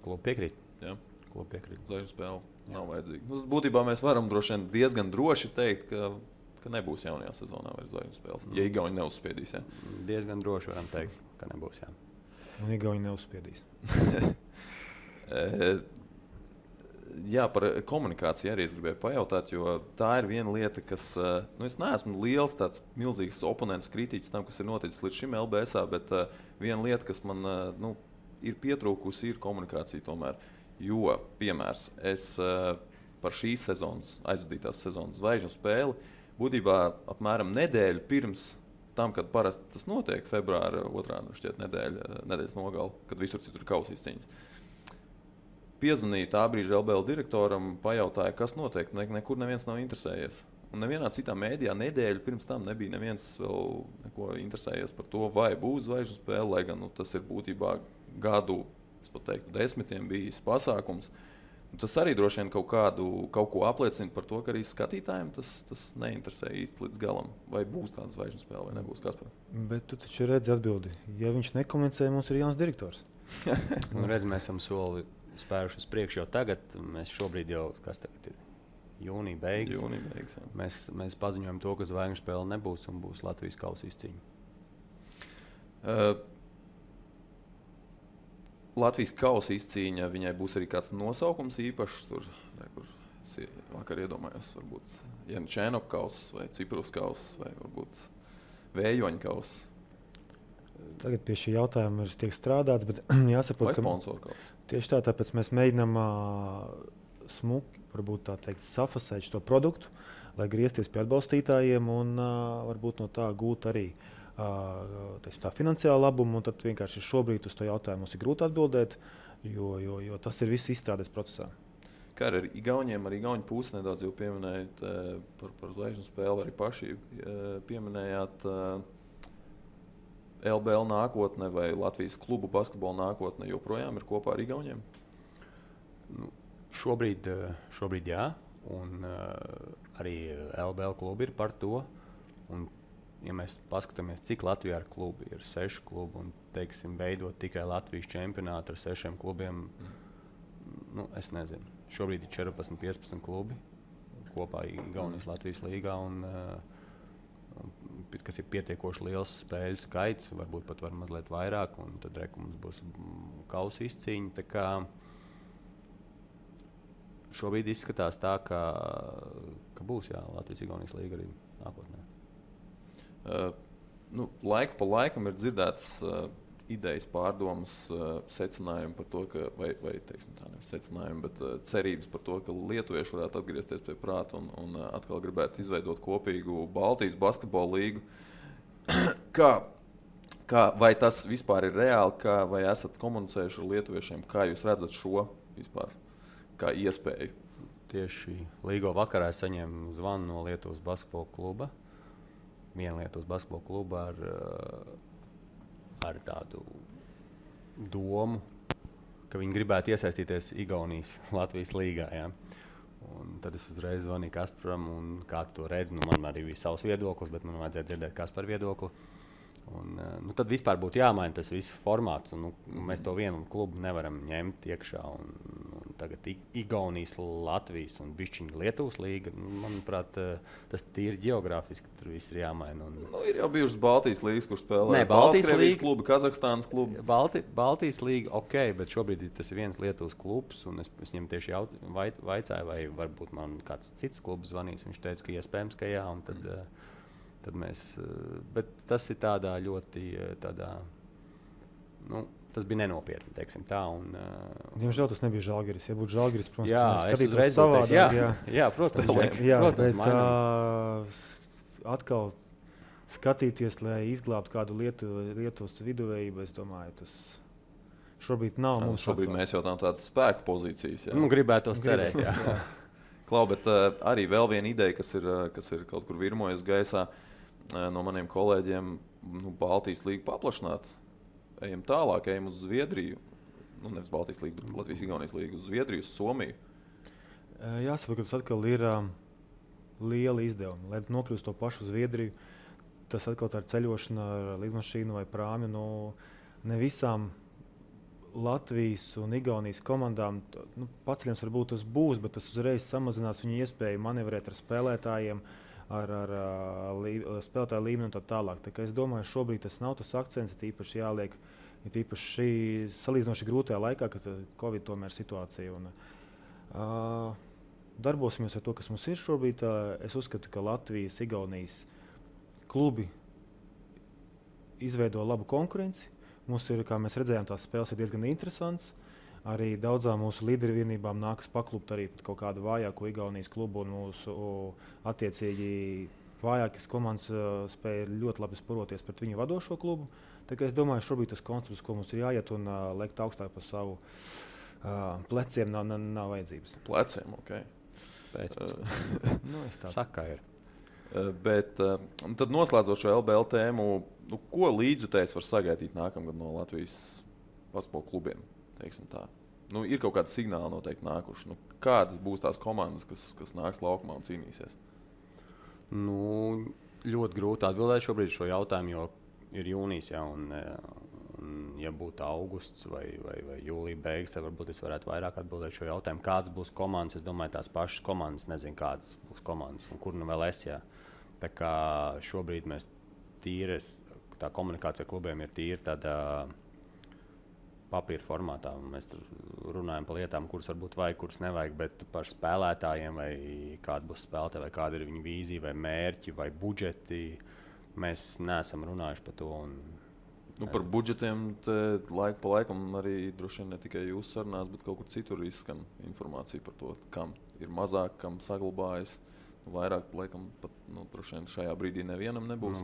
Klubi piekrīt. Jā. Klubi piekrīt. Zvaigžņu spēle nav vajadzīga. Būtībā mēs varam diezgan droši teikt, ka nebūs jaunajā sezonā vairs zvaigžņu spēles. Ja Igauni neuzspiedīs, jā? Diezgan droši varam teikt, ka nebūs, jā. Un Igauni neuzspiedīs. Jā, par komunikāciju arī es gribēju pajautāt, jo tā ir viena lieta, kas, es neesmu liels tāds milzīgs oponents kritiķis tam, kas ir noticis līdz šim LBS-ā, bet viena lieta, kas man ir pietrūkusi, ir komunikācija tomēr. Jo, piemērs, es par šīs sezonas, aizvadītās sezonas zvaigžņu spēli, būtībā apmēram nedēļu pirms tam, kad parasti tas notiek, februāra 2. nedēļas nogali, kad visur citur ir kausa izcīņas. Piezvanīju tā brīža LBL direktoram, pajautāju, kas notiek, nekur neviens nav interesējies. Un nevienā citā mēdījā nedēļu pirms tam nebija neviens vēl neko interesējies par to, vai būs zvaigžņu spēle, lai gan tas ir būtībā gadu, es pat teiktu, 10 bijis pasākums. Tas arī droši vien kaut ko apliecina par to, ka arī skatītājiem tas neinteresē īsti līdz galam. Vai būs tāda zvaigžņu spēle, vai nebūs, Kaspar? Bet tu taču redzi atbildi. Ja viņš nekomunicē, mums ir jauns direktors. Redz, mēs esam soli spēruši uz priekšu jau tagad. Mēs šobrīd jau, kas tagad ir? Jūnija beigas. Jūnija beigas, jā. Mēs paziņojam to, ka zvaigžņu spēle nebūs un būs Latvijas kausa izcīņa. Latvijas kausa izcīņa, viņai būs arī kāds nosaukums īpašs. Tur, kur es vakar iedomājos, varbūt Jančēnok kausa vai Ciprus kausa vai varbūt Vējoņa kausa. Tagad pie šī jautājuma tiek strādāts, bet jāsaprot, vai sponsoru kausa. Tieši tā, tāpēc mēs mēģinām smuki, varbūt tā teikt, safasēt šo produktu, lai griezties pie atbalstītājiem un varbūt no tā gūt arī tā finansiāla labuma, un tad vienkārši šobrīd uz to jautājumu mums ir grūti atbildēt, jo tas ir viss izstrādes procesā. Kā ar Igauniem, arī Igauņu pusi nedaudz jau pieminējāt par zvaigžņu spēli, arī paši pieminējāt LBL nākotne vai Latvijas klubu basketbola nākotne joprojām ir kopā ar Igauņiem? Šobrīd jā, un arī LBL klubi ir par to. Un, ja mēs paskatāmies, cik Latvijā ir klubi, ir 6 klubi, un, teiksim, veidot tikai Latvijas čempionātu ar 6 klubiem, es nezinu. Šobrīd ir 14-15 klubi kopā Igaunijas Latvijas līgā, kas ir pietiekoši liels spēļu skaits, varbūt pat var mazliet vairāk, un tad mums būs kausa izcīņa. Tā kā šobrīd izskatās tā, ka būs Latvijas Igaunijas līga arī nākotnē. Laiku pa laikam ir dzirdēts idejas, pārdomas, secinājumi par to, vai teiksim tā, nevis secinājumi, bet cerības par to, ka lietuvieši varētu atgriezties pie prāta un atkal gribētu izveidot kopīgu Baltijas basketbola līgu. Vai tas vispār ir reāli, vai esat komunicējuši ar lietuviešiem, kā jūs redzat šo vispār kā iespēju? Tieši līgo vakarā saņēmu zvanu no Lietuvas basketbola kluba. Viena Lietuvas basketbola kluba ar tādu domu, ka viņi gribētu iesaistīties Igaunijas Latvijas līgā. Ja? Un tad es uzreiz zvanīju Kasparam, un kā tu to redzi, man arī bija savs viedoklis, bet man vajadzēja dzirdēt Kaspara viedokli. Un, tad vispār būtu jāmaina tas viss formāts, un mēs to vienu klubu nevaram ņemt iekšā. Un tagad Igaunijas, Latvijas un bišķiņa Lietuvas līga. Manuprāt, tas tīri geogrāfiski tur viss ir jāmaina. Ir jau bijušas Baltijas līgas, kur spēlē Baltkrievijas klubi, Kazahstānas klubi. Baltijas līga, ok, bet šobrīd tas ir viens Lietuvas klubs, un es viņam tieši vaicāju, vai varbūt man kāds cits klubs zvanīs. Viņš teica, ka iespējams, ka jā, un tad mēs, bet tas ir tādā ļoti, tas bija nenopietni, teiksim tā. Diemžēl tas nebija Žalgiris. Ja būtu Žalgiris, protams, jā, es uzreiz savādāk. Jā, protams. Bet atkal skatīties, lai izglābtu kādu Lietuvas viduvējību, es domāju, tas šobrīd nav mums. Šobrīd mēs jau tādas spēku pozīcijas. Jā. Gribētu tos cerēt, jā. Klau, bet arī vēl viena ideja, kas ir kaut kur virmojas gaisā no maniem kolēģiem, Baltijas līgu paplašināt. Ejam tālāk, ejam uz Zviedriju. Nevis Baltijas līgu, bet Latvijas-Igaunijas līgu, uz Zviedriju, uz Somiju. Jāsaprot, ka tas atkal ir liela izdevuma. Lai nokļūst to pašu Zviedriju, tas atkal tā ir ceļošana ar lidmašīnu vai prāmi. Ne visām Latvijas un Igaunijas komandām paceļams varbūt tas būs, bet tas uzreiz samazinās viņu iespēju manevrēt ar spēlētājiem, ar spēlētāju līmeni un tā tālāk. Tā kā es domāju, šobrīd tas nav tas akcents, ir īpaši jāliek, ir īpaši salīdzinoši grūtajā laikā, kad Covid tomēr situācija. Darbosimies ar to, kas mums ir šobrīd. Es uzskatu, ka Latvijas, Igaunijas klubi izveido labu konkurenci. Mums ir, kā mēs redzējām, tās spēles ir diezgan interesants. Arī daudzām mūsu līderu vienībām nākas paklupt arī pat kaut kādu vājāko Igaunijas klubu, un mūsu attiecīgi vājākas komandas spēja ļoti labi sporoties pret viņu vadošo klubu. Tā kā es domāju, šobrīd tas koncepts, ko mums ir jāiet un lekt augstāk par savu pleciem, nav vajadzības. Pleciem, ok. Saka ir. Bet tad noslēdzot šo LBL tēmu, ko līdzjutējs var sagaidīt nākamgad no Latvijas basketbola klubiem? Tā. Ir kaut kādi signāli noteikti nākuši. Kādas būs tās komandas, kas nāks laukumā un cīnīsies? Ļoti grūti atbildēt šobrīd šo jautājumu, jo ir jūnijas, jā, un ja būtu augusts vai jūlija beigas, tad varbūt es varētu vairāk atbildēt šo jautājumu. Kādas būs komandas? Es domāju, tās pašas komandas, nezinu, kādas būs komandas un kur vēl es. Jā. Tā kā šobrīd mēs tā komunikācija klubiem ir tīri tādā papīra formātā. Mēs tur runājam par lietām, kuras varbūt vajag, kuras nevajag, bet par spēlētājiem, vai kāda būs spēlētāja, vai kāda ir viņa vīzija, vai mērķi, vai budžeti. Mēs neesam runājuši par to. Par budžetiem laiku pa laikam arī droši vien ne tikai jūsu sarunās, bet kaut kur citur izskan informācija par to, kam ir mazāk, kam saglabājas. Vairāk, laikam, pat droši vien šajā brīdī nevienam nebūs.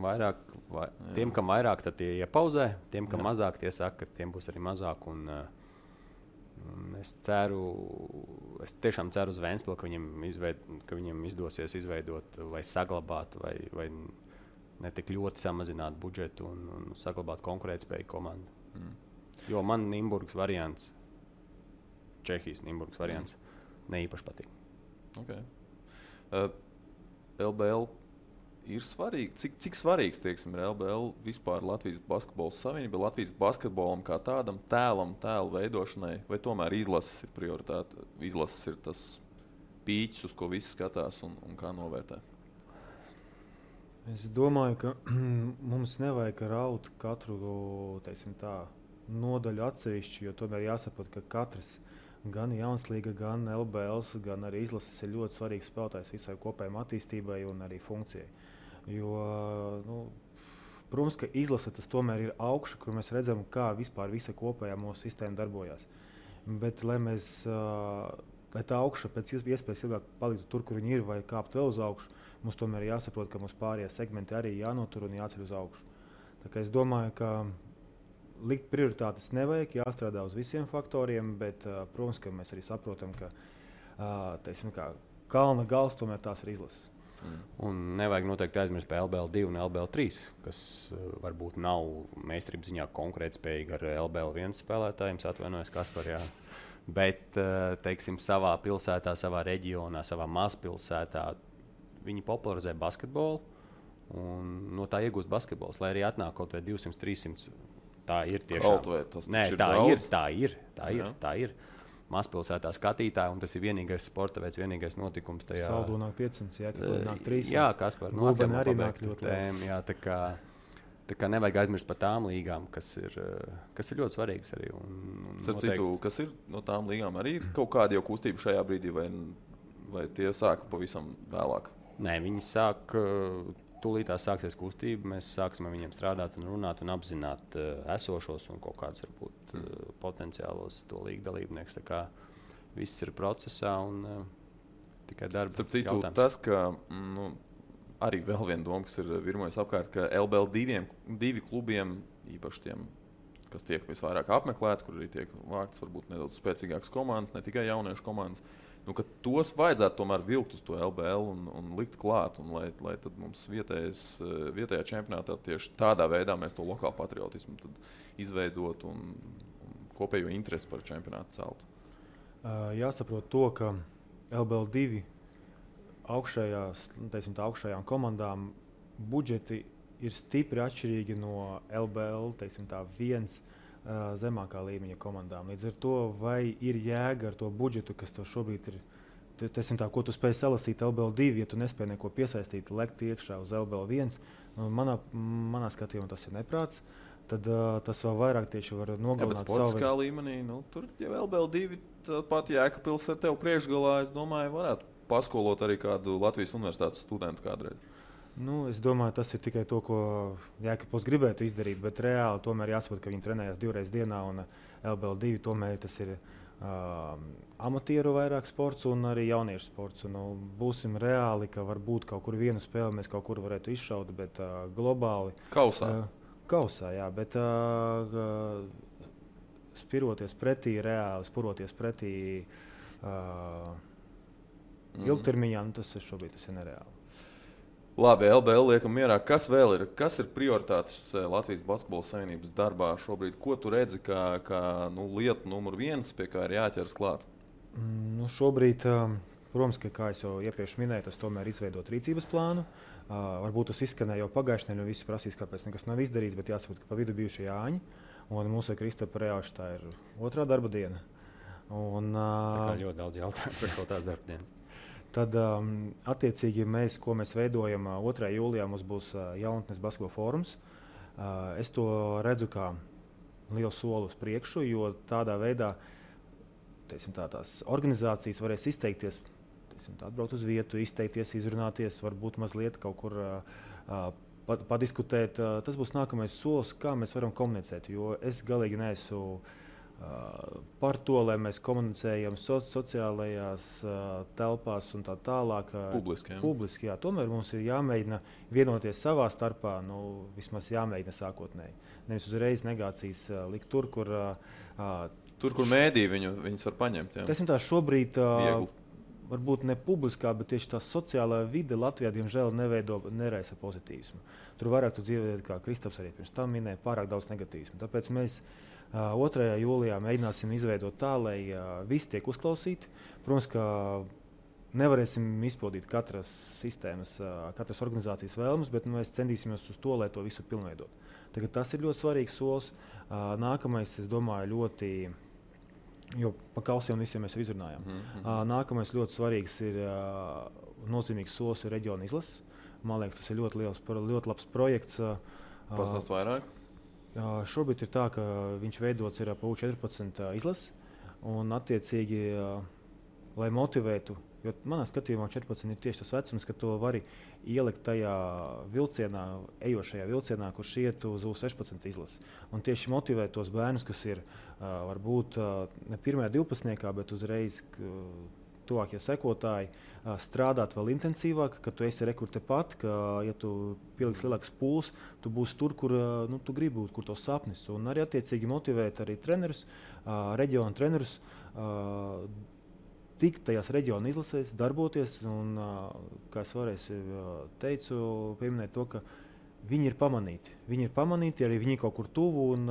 Tiem, kam vairāk, tad tie iepauzē. Tiem, kam mazāk, tie saka, ka tiem būs arī mazāk. Es tiešām ceru uz Ventspili, ka viņam izdosies izveidot vai saglabāt, vai ne tik ļoti samazināt budžetu un saglabāt konkurētspēju komandu. Jo man Nimburgas variants, Čehijas Nimburgas variants, neīpaši patīk. Okay. LBL ir svarīgi. Cik svarīgs ir LBL vispār Latvijas basketbola savienība, Latvijas basketbolam kā tādam tēlu veidošanai, vai tomēr izlases ir prioritāte? Izlases ir tas pīķis, uz ko visi skatās un kā novērtē? Es domāju, ka mums nevajag raut katru nodaļu atsevišķi, jo tomēr jāsaprot, ka katrs gan Jaunslīga, gan LBL, gan arī izlases ir ļoti svarīgs spēlētājs visai kopējai attīstībai un arī funkcijai. Jo, protams, ka izlase tas tomēr ir augša, kur mēs redzam, kā vispār visa kopējā mūsu sistēma darbojās. Bet, lai tā augša pēc iespējas ilgāk paliktu tur, kur viņi ir, vai kāpt vēl uz augšu, mums tomēr jāsaprot, ka mums pārējie segmenti arī jānotur un jāceļ uz augšu. Tā kā es domāju, ka likt prioritātes nevajag, jāstrādā uz visiem faktoriem, bet, protams, ka mēs arī saprotam, ka kalna gals tomēr tās ir izlases. Un nevajag noteikti aizmirst par LBL2 un LBL3, kas varbūt nav meistarības ziņā konkurētspējīgi ar LBL1 spēlētājiem, atvainojos Kaspar, jā. Bet, savā pilsētā, savā reģionā, savā mazpilsētā viņi popularizē basketbolu un no tā iegūst basketbols, lai arī atnāk kaut vai 200-300. Tā ir tiešām. Tā ir. mazpilsētā skatītāji, un tas ir vienīgais sporta veids, vienīgais notikums tajā. Saldu nāk 500, Jēkabpils nāk 300. Jā, Kaspar, Gulbeni arī nāk ļoti tēma, jā, tā kā nevajag aizmirst par tām līgām, kas ir ļoti svarīgas arī. Citu, kas ir no tām līgām, arī ir kaut kāda jau kustība šajā brīdī, vai tie sāka pavisam vēlāk? Nē, viņi sāk, tūlītās sāksies kustība, mēs sāksim ar viņiem strādāt un runāt un apzināt esošos un kaut kādus varbūt potenciālos to līgu dalībniekus. Tā kā viss ir procesā un tikai darba Starp citu, jautājums. Tas, ka arī vēl viena doma, kas ir virmojas apkārt, ka LBL divi klubiem, īpaši tiem, kas tiek visvairāk apmeklēti, kur arī tiek vāktas varbūt nedaudz spēcīgākas komandas, ne tikai jauniešu komandas, ka tos vajadzētu tomēr vilkt uz to LBL un likt klāt, un lai tad mums vietējā čempionātā tieši tādā veidā mēs to lokālu patriotismu tad izveidot un kopējo interesi par čempionātu celtu. Jāsaprot to, ka LBL 2 augšējām komandām budžeti ir stipri atšķirīgi no LBL 1 zemākā līmeņa komandām. Līdz ar to, vai ir jēga ar to budžetu, kas to šobrīd ir, ko tu spēj salasīt LBL 2, ja tu nespēj neko piesaistīt, lekt iekšā uz LBL 1, manā skatījumā tas ir neprāts. Tad tas vēl vairāk tieši var nogalināt savu. Sportiskā līmenī, tur jau LBL 2 pat Jēkabpils ar tevi priekšgalā, es domāju, varētu paskolot arī kādu Latvijas universitātes studentu kādreiz. Es domāju, tas ir tikai to, ko Jēkabpils gribētu izdarīt, bet reāli tomēr jāsaprot, ka viņi trenējas 2 reizes dienā, un LBL 2 tomēr tas ir amatieru vairāk sports un arī jauniešu sports. Būsim reāli, ka varbūt kaut kur vienu spēli mēs kaut kur varētu izšaut, bet globāli. Kausā, jā, bet spiroties pretī ilgtermiņā, tas šobrīd ir nereāli. Labi, LBL liekam mierā. Kas vēl ir? Kas ir prioritātes Latvijas Basketbola Savienības darbā šobrīd? Ko tu redzi kā lieta numur 1, pie kā ir jāķers klāt? Šobrīd, protams, kā es jau iepriekš minēju, tas tomēr izveidot rīcības plānu. Varbūt tas izskanēja jau pagājušajā nedēļā, visi prasīs, kāpēc nekas nav izdarīts, bet jāsaprot, ka pa vidu bijuši Jāņi, un mūsu Kristapa Reāša tā ir 2. darba diena. Tā kā ļoti daudz jautājumu par kaut tās darba dienas. Tad, attiecīgi, ko mēs veidojam 2. jūlijā, mums būs Jaunatnes basketbola fórums. Es to redzu kā lielu soli uz priekšu, jo tādā veidā tās organizācijas varēs izteikties, atbraukt uz vietu, izteikties, izrunāties, varbūt mazliet kaut kur padiskutēt. Tas būs nākamais solis, kā mēs varam komunicēt, jo es galīgi neesmu par to, lai mēs komunicējam sociālajās telpās un tā tālāk. Publiski, jā. Tomēr mums ir jāmēģina vienoties savā starpā, vismaz jāmēģina sākotnēji. Nevis uzreiz negācijas likt tur, kur mēdī viņus var paņemt. Tā šobrīd varbūt ne publiskā, bet tieši tā sociālā vide Latvijā, diemžēl, neraisa pozitīvismu. Tur vairāk tu dzīvē, kā Kristaps arī pirms tam minēja, pārāk daudz negatīvismu. Tāpēc mēs 2. jūlijā mēģināsim izveidot tā, lai visi tiek uzklausīti. Protams, ka nevarēsim izpildīt katras sistēmas, katras organizācijas vēlmes, bet mēs centīsimies uz to, lai to visu pilnveidot. Tagad tas ir ļoti svarīgs solis. Nākamais, es domāju, jo pa kausiem visiem mēs izrunājām. Nākamais ļoti svarīgs ir nozīmīgs solis ir reģiona izlases. Man liekas, tas ir ļoti labs projekts. Pastāst vairāk? Šobrīd ir tā, ka viņš veidots ir pa U14 izlases, un attiecīgi, lai motivētu, jo manā skatījumā 14 ir tieši tas vecums, ka to vari ielikt tajā vilcienā, ejošajā vilcienā, kurš iet uz U16 izlases. Un tieši motivēt tos bērnus, kas ir varbūt ne 1. 12, bet uzreiz tuvākie sekotāji, strādāt vēl intensīvāk, ka tu esi rekur tepat, ka, ja tu pieliks lielāks pūls, tu būsi tur, kur tu gribi būt, kur tos sapnis. Un arī attiecīgi motivēt arī trenerus, reģionu trenerus, tikt tajās reģionu izlasēs, darboties. Un, kā es vēlreiz teicu, pieminēt to, ka viņi ir pamanīti. Viņi ir pamanīti, arī viņi kaut kur tuvu un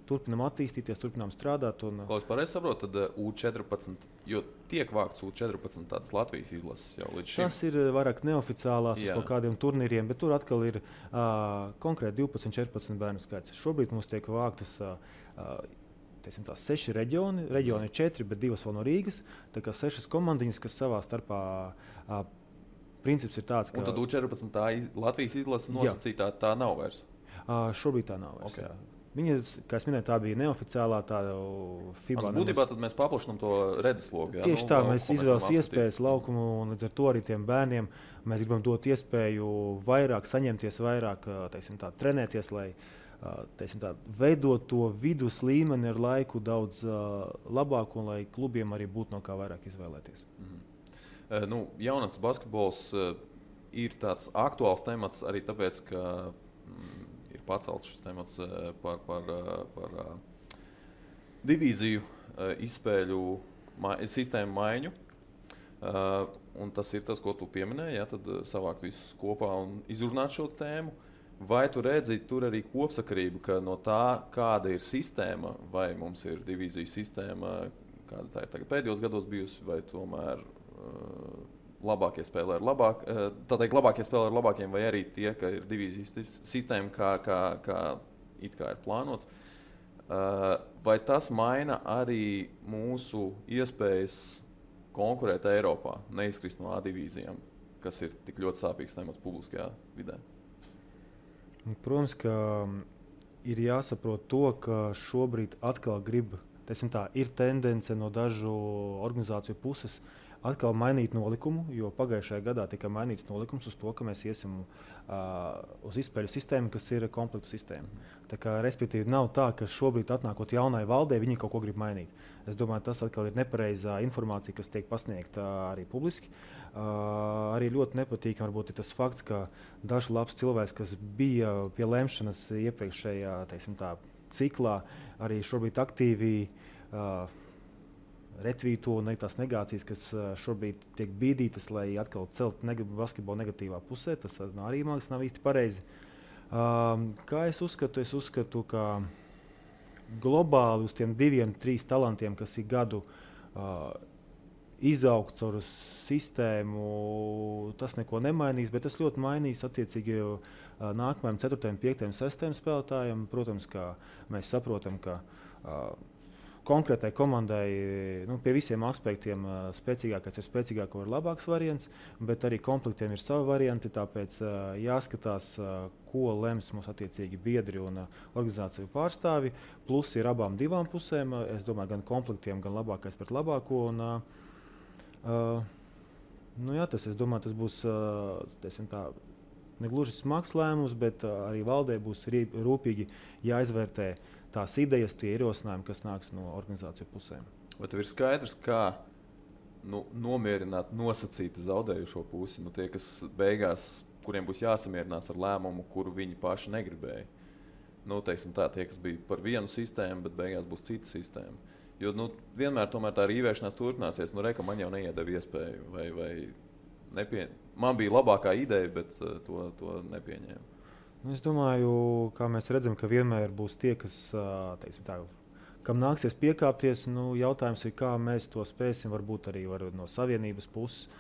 turpinām attīstīties, turpinām strādāt. Klaus, pareizi saprot, tad U14, jo tiek vākts U14 tādas Latvijas izlases jau līdz šim. Tas ir vairāk neoficiālās uz kaut kādiem turnīriem, bet tur atkal ir konkrēti 12-14 bērnu skaits. Šobrīd mums tiek vāktas teiksim, 6 reģioni ir 4, bet 2 vēl no Rīgas. Tā kā 6 komandiņas, kas savā starpā princips ir tāds, ka... Un tad U14 tā Latvijas izlase nosacītā tā nav vairs? Šobrīd tā nav vairs, okay. jā. Viņa, kā es minēju, tā bija neoficiālā tāda FIBA. Būtībā tad mēs paplašinām to redzesloku. Tieši tā, mēs izvēlas iespējas laukumu, un līdz ar to arī tiem bērniem mēs gribam dot iespēju vairāk, saņemties vairāk, teiksim tā, trenēties, lai teiksim tā, veidot to vidus līmeni ar laiku daudz labāku, un lai klubiem arī būtu no kā vairāk izvēlēties. Jaunatnes basketbols ir tāds aktuāls temats arī tāpēc, ka ir pacelts šis temats par divīziju izspēļu sistēmu maiņu. Un tas ir tas, ko tu pieminēji, ja, tad savākt visus kopā un izrunāt šo tēmu. Vai tu redzi tur arī kopsakarību, ka no tā, kāda ir sistēma, vai mums ir divīziju sistēma, kāda tā ir tagad pēdējos gados bijusi, vai tomēr labākie spēlē ar labākiem, vai arī tie, ka ir divīzijas sistēma, kā it kā ir plānots. Vai tas maina arī mūsu iespējas konkurēt Eiropā, neizkrist no A divīzijām, kas ir tik ļoti sāpīgs temats publiskajā vidē? Protams, ka ir jāsaprot to, ka šobrīd atkal ir tendence no dažu organizāciju puses atkal mainīt nolikumu, jo pagājušajā gadā tika mainīts nolikums uz to, ka mēs iesim uz izspēļu sistēmu, kas ir komplektu sistēma. Tā kā, respektīvi, nav tā, ka šobrīd atnākot jaunai valdē, viņi kaut ko grib mainīt. Es domāju, tas atkal ir nepareizā informācija, kas tiek pasniegta arī publiski. Arī ļoti nepatīkami varbūt ir tas fakts, ka daži labs cilvēks, kas bija pie lemšanas iepriekšējā, teiksim tā, ciklā, arī šobrīd aktīvi retvīto un tās negācijas, kas šobrīd tiek bīdītas, lai atkal celt basketbolu negatīvā pusē. Tas arī mākslinieks nav īsti pareizi. Kā es uzskatu? Es uzskatu, ka globāli uz tiem 2-3 talantiem, kas ir gadu izaugt caur sistēmu, tas neko nemainīs, bet tas ļoti mainīs attiecīgi nākamajam 4., 5., 6. spēlētājiem. Protams, ka mēs saprotam, ka konkrētai komandai pie visiem aspektiem spēcīgākais ir spēcīgāko ir labāks variants, bet arī komplektiem ir savi varianti, tāpēc jāskatās, ko lems mums attiecīgi biedri un organizāciju pārstāvi. Plus ir abām divām pusēm, es domāju, gan komplektiem, gan labākais pret labāko. Es domāju, tas būs negluži smags lēmums, bet arī valdē būs rūpīgi jāizvērtē tās idejas, tie ierosinājumi, kas nāks no organizāciju pusēm. Vai tev ir skaidrs, kā nomierināt nosacīti zaudējušo pusi? Tie, kas beigās, kuriem būs jāsamierinās ar lēmumu, kuru viņi paši negribēja. Teiksim tā, tie, kas bija par vienu sistēmu, bet beigās būs cita sistēma. Jo vienmēr tomēr tā rīvēšanās turpināsies. Reka, man jau neiedeva iespēju, vai man bija labākā ideja, bet to nepieņēma. Es domāju, kā mēs redzam, ka vienmēr būs tie, kas, kam nāksies piekāpties. Jautājums ir, kā mēs to spēsim, varbūt arī no savienības puses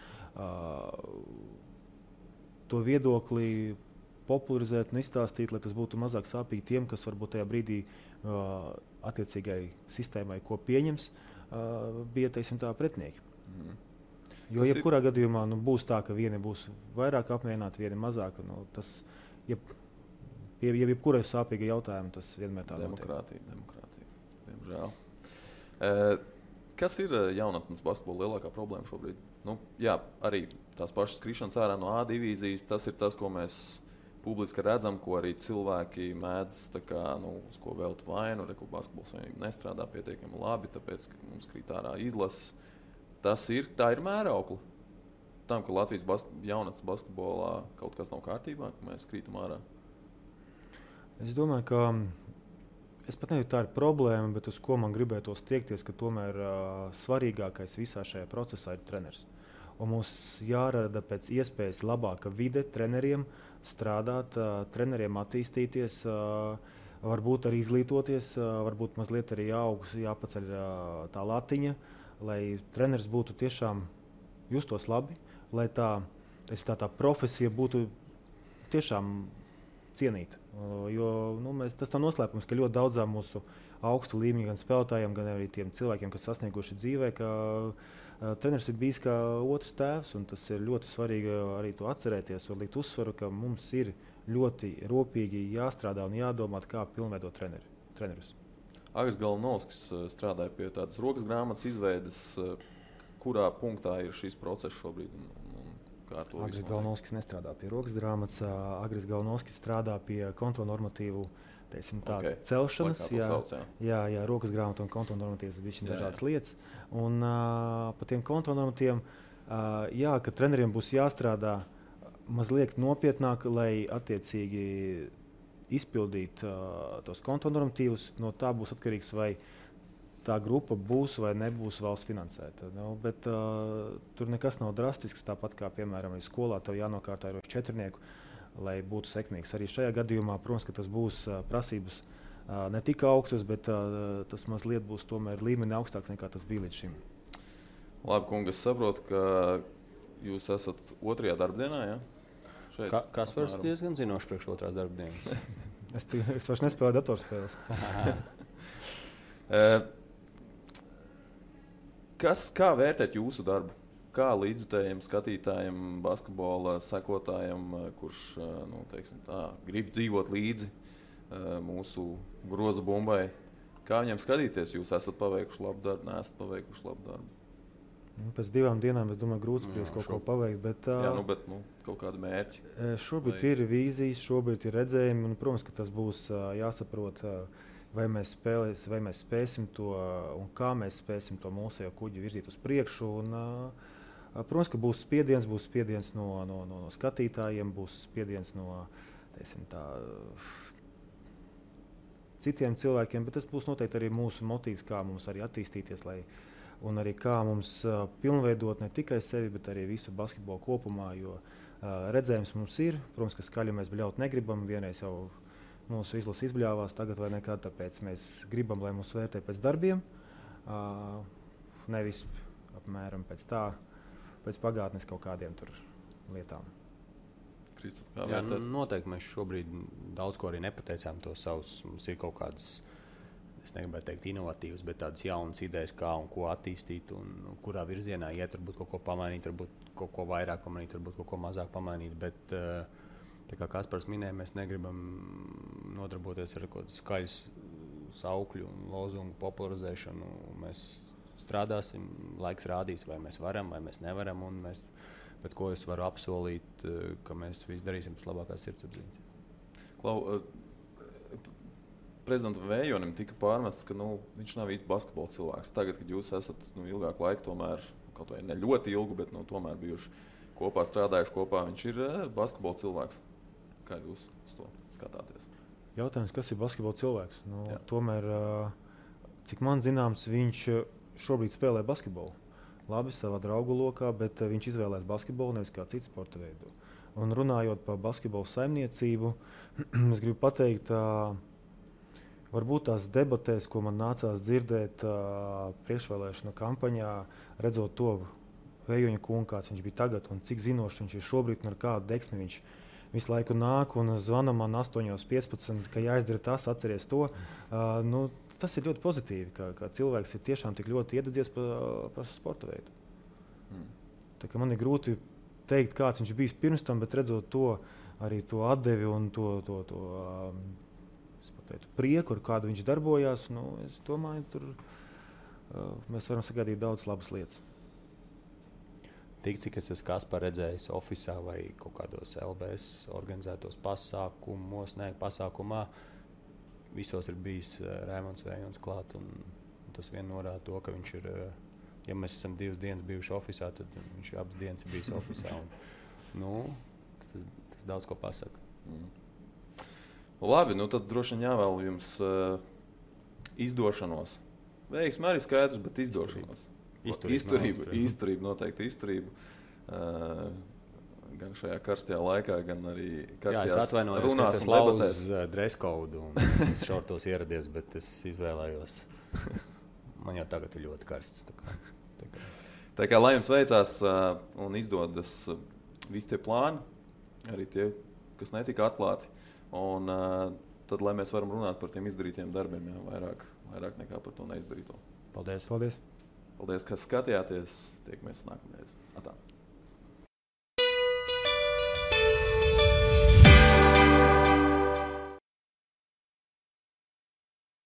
to viedokli popularizēt un izstāstīt, lai tas būtu mazāk sāpīgi tiem, kas varbūt tajā brīdī attiecīgai sistēmai, ko pieņems, bija pretinieki. Jo jebkurā gadījumā būs tā, ka vieni būs vairāk apmierināti, vieni mazāk. Jebkurai sāpīga jautājuma tas vienmēr tā demokrātija, diemžēl. Kas ir jaunatnes basketbola lielākā problēma šobrīd? Arī tās pašas skrišanas ārā no A divīzijas, tas ir tas, ko mēs publiski redzam, ko arī cilvēki mēdz uz ko velt vainu, ka basketbols nestrādā pietiekami labi, tāpēc, ka mums krīt ārā izlases. Tā ir mēraukla tam, ka Latvijas jaunatnes basketbolā kaut kas nav kārtībā, ka mēs krītam ārā. Es domāju, ka es pat nezinu, tā ir problēma, bet uz ko man gribētos tiekties, ka tomēr svarīgākais visā šajā procesā ir treneris. Un mums jārada pēc iespējas labāka vide treneriem strādāt, treneriem attīstīties, varbūt arī izglītoties, varbūt mazliet arī jāpaceļ tā latiņa, lai treneris būtu tiešām justos labi, lai tā profesija būtu tiešām cienīta. Jo tas tā noslēpums, ka ļoti daudzām mūsu augstu līmeņu gan spēlētājiem, gan arī tiem cilvēkiem, kas sasnieguši dzīvē, ka treneris ir bijis kā otrs tēvs, un tas ir ļoti svarīgi arī to atcerēties un likt uzsvaru, ka mums ir ļoti rūpīgi jāstrādā un jādomā, kā pilnveidot trenerus. Agris Galnovskis strādāja pie tādas rokas grāmatas izveides. Kurā punktā ir šis process šobrīd? Agris Galnovskis nestrādā pie rokas grāmatas. Agris Galnovskis strādā pie kontonormatīvu celšanas. Jā, rokas grāmata un kontonormatīvas ir dažādas lietas. Un par tiem kontonormatīviem, ka treneriem būs jāstrādā mazliet nopietnāk, lai attiecīgi izpildītu tos kontonormatīvus. No tā būs atkarīgs, vai tā grupa būs vai nebūs valsts finansēta. Bet tur nekas nav drastisks, tāpat kā, piemēram, arī skolā tev jānokārtā ar 4, lai būtu sekmīgs. Arī šajā gadījumā, protams, ka tas būs prasības ne tik augstas, bet tas mazliet būs tomēr līmeni augstāk nekā tas bija līdz šim. Labi, kungi, es saprotu, ka jūs esat 2. darbdienā, ja? Kaspars diezgan zinoši priekš 2. darbdienas. Es vairs nespēlēju datorspēles. Kā vērtēt jūsu darbu? Kā līdzjutējiem, skatītājiem, basketbola sekotājiem, kurš grib dzīvot līdzi mūsu groza bumbai? Kā viņiem skatīties? Jūs esat paveikuši labu darbu, neesat paveikuši labu darbu? Pēc 2 dienām es domāju, grūti spriest kaut ko paveikt. Bet kaut kādi mērķi. Šobrīd ir vīzijas, šobrīd ir redzējumi, un, protams, ka tas būs jāsaprot, vai mēs spēsim to un kā mēs spēsim to mūsu kuģi virzīt uz priekšu. Un, protams, ka būs spiediens no skatītājiem, būs spiediens no citiem cilvēkiem, bet tas būs noteikti arī mūsu motīvs, kā mums arī attīstīties, un arī kā mums pilnveidot ne tikai sevi, bet arī visu basketbolu kopumā, jo redzējums mums ir. Protams, ka skaļi mēs bļaut negribam, vienreiz jau mūsu izlase izbļāvās, tagad vai nekad, tāpēc mēs gribam, lai mūs vērtē pēc darbiem, nevis apmēram pēc pagātnes kaut kādiem tur lietām. Jā, noteikti mēs šobrīd daudz ko arī nepateicām to savus. Mums ir kaut kādas, es negribētu teikt inovatīvas, bet tādas jaunas idejas, kā un ko attīstīt un kurā virzienā iet, varbūt kaut ko pamainīt, varbūt kaut ko vairāk pamainīt, varbūt kaut ko mazāk pamainīt, bet tā kā Kaspars minēja, mēs negribam nodarboties ar kaut kādu skaļu saukļu un lozungu popularizēšanu. Mēs strādāsim, laiks rādīs, vai mēs varam, vai mēs nevaram, bet ko es varu apsolīt, ka mēs visu darīsim pēc labākās sirdsapziņas. Klau, prezidentam Vējonim tika pārmests, ka viņš nav īsti basketbola cilvēks. Tagad, kad jūs esat ilgāku laiku, tomēr, kaut vai ne ļoti ilgu, bet tomēr bijuši kopā, strādājuši kopā, viņš ir basketbola cilvēks. Kā jūs uz to skatāties? Jautājums, kas ir basketbola cilvēks? Tomēr, cik man zināms, viņš šobrīd spēlē basketbolu. Labi, savā draugu lokā, bet viņš izvēlēs basketbolu, nevis kā citu sporta veidu. Un runājot par basketbolu saimniecību, es gribu pateikt, varbūt tās debatēs, ko man nācās dzirdēt priekšvēlēšanu kampaņā, redzot to Vējoņa kungu, kāds viņš bija tagad un cik zinošs viņš ir šobrīd un ar kādu deksmi viņš visu laiku nāk un zvana man 8:15, ka jāizdara tas, atceries to. Tas ir ļoti pozitīvi, ka cilvēks ir tiešām tik ļoti iededzies par sporta veidu. Tā kā man ir grūti teikt, kāds viņš bijis pirms tam, bet redzot to, arī to atdevi un to prieku, ar kādu viņš darbojās, es domāju, tur mēs varam sagaidīt daudz labas lietas. Tik, cik es esmu Kaspar redzējis ofisā vai kaut kādos LBS organizētos pasākumā, visos ir bijis Raimonds Vējons klāt, un tas vien norāda to, ka viņš ir, ja mēs esam 2 dienas bijuši ofisā, tad viņš abas dienas ir bijis ofisā. Tas daudz ko pasaka. Labi, tad droši vien jāvēl jums izdošanos. Veiksmi arī skaidrs, bet izdošanos. Izturība, noteikti izturība. Gan šajā karstajā laikā, gan arī karstajās runās un debatēs. Jā, es atvainojos, ka es lauzu dress code un es šortos ieradies, bet es izvēlējos. Man jau tagad ir ļoti karsts. Tā kā lai jums veicās un izdodas visi tie plāni, arī tie, kas netika atklāti, un tad, lai mēs varam runāt par tiem izdarītiem darbiem, vairāk vairāk nekā par to neizdarīto. Paldies! Paldies! Paldies, ka skatījāties. Tiekamies nākamreiz. Atā.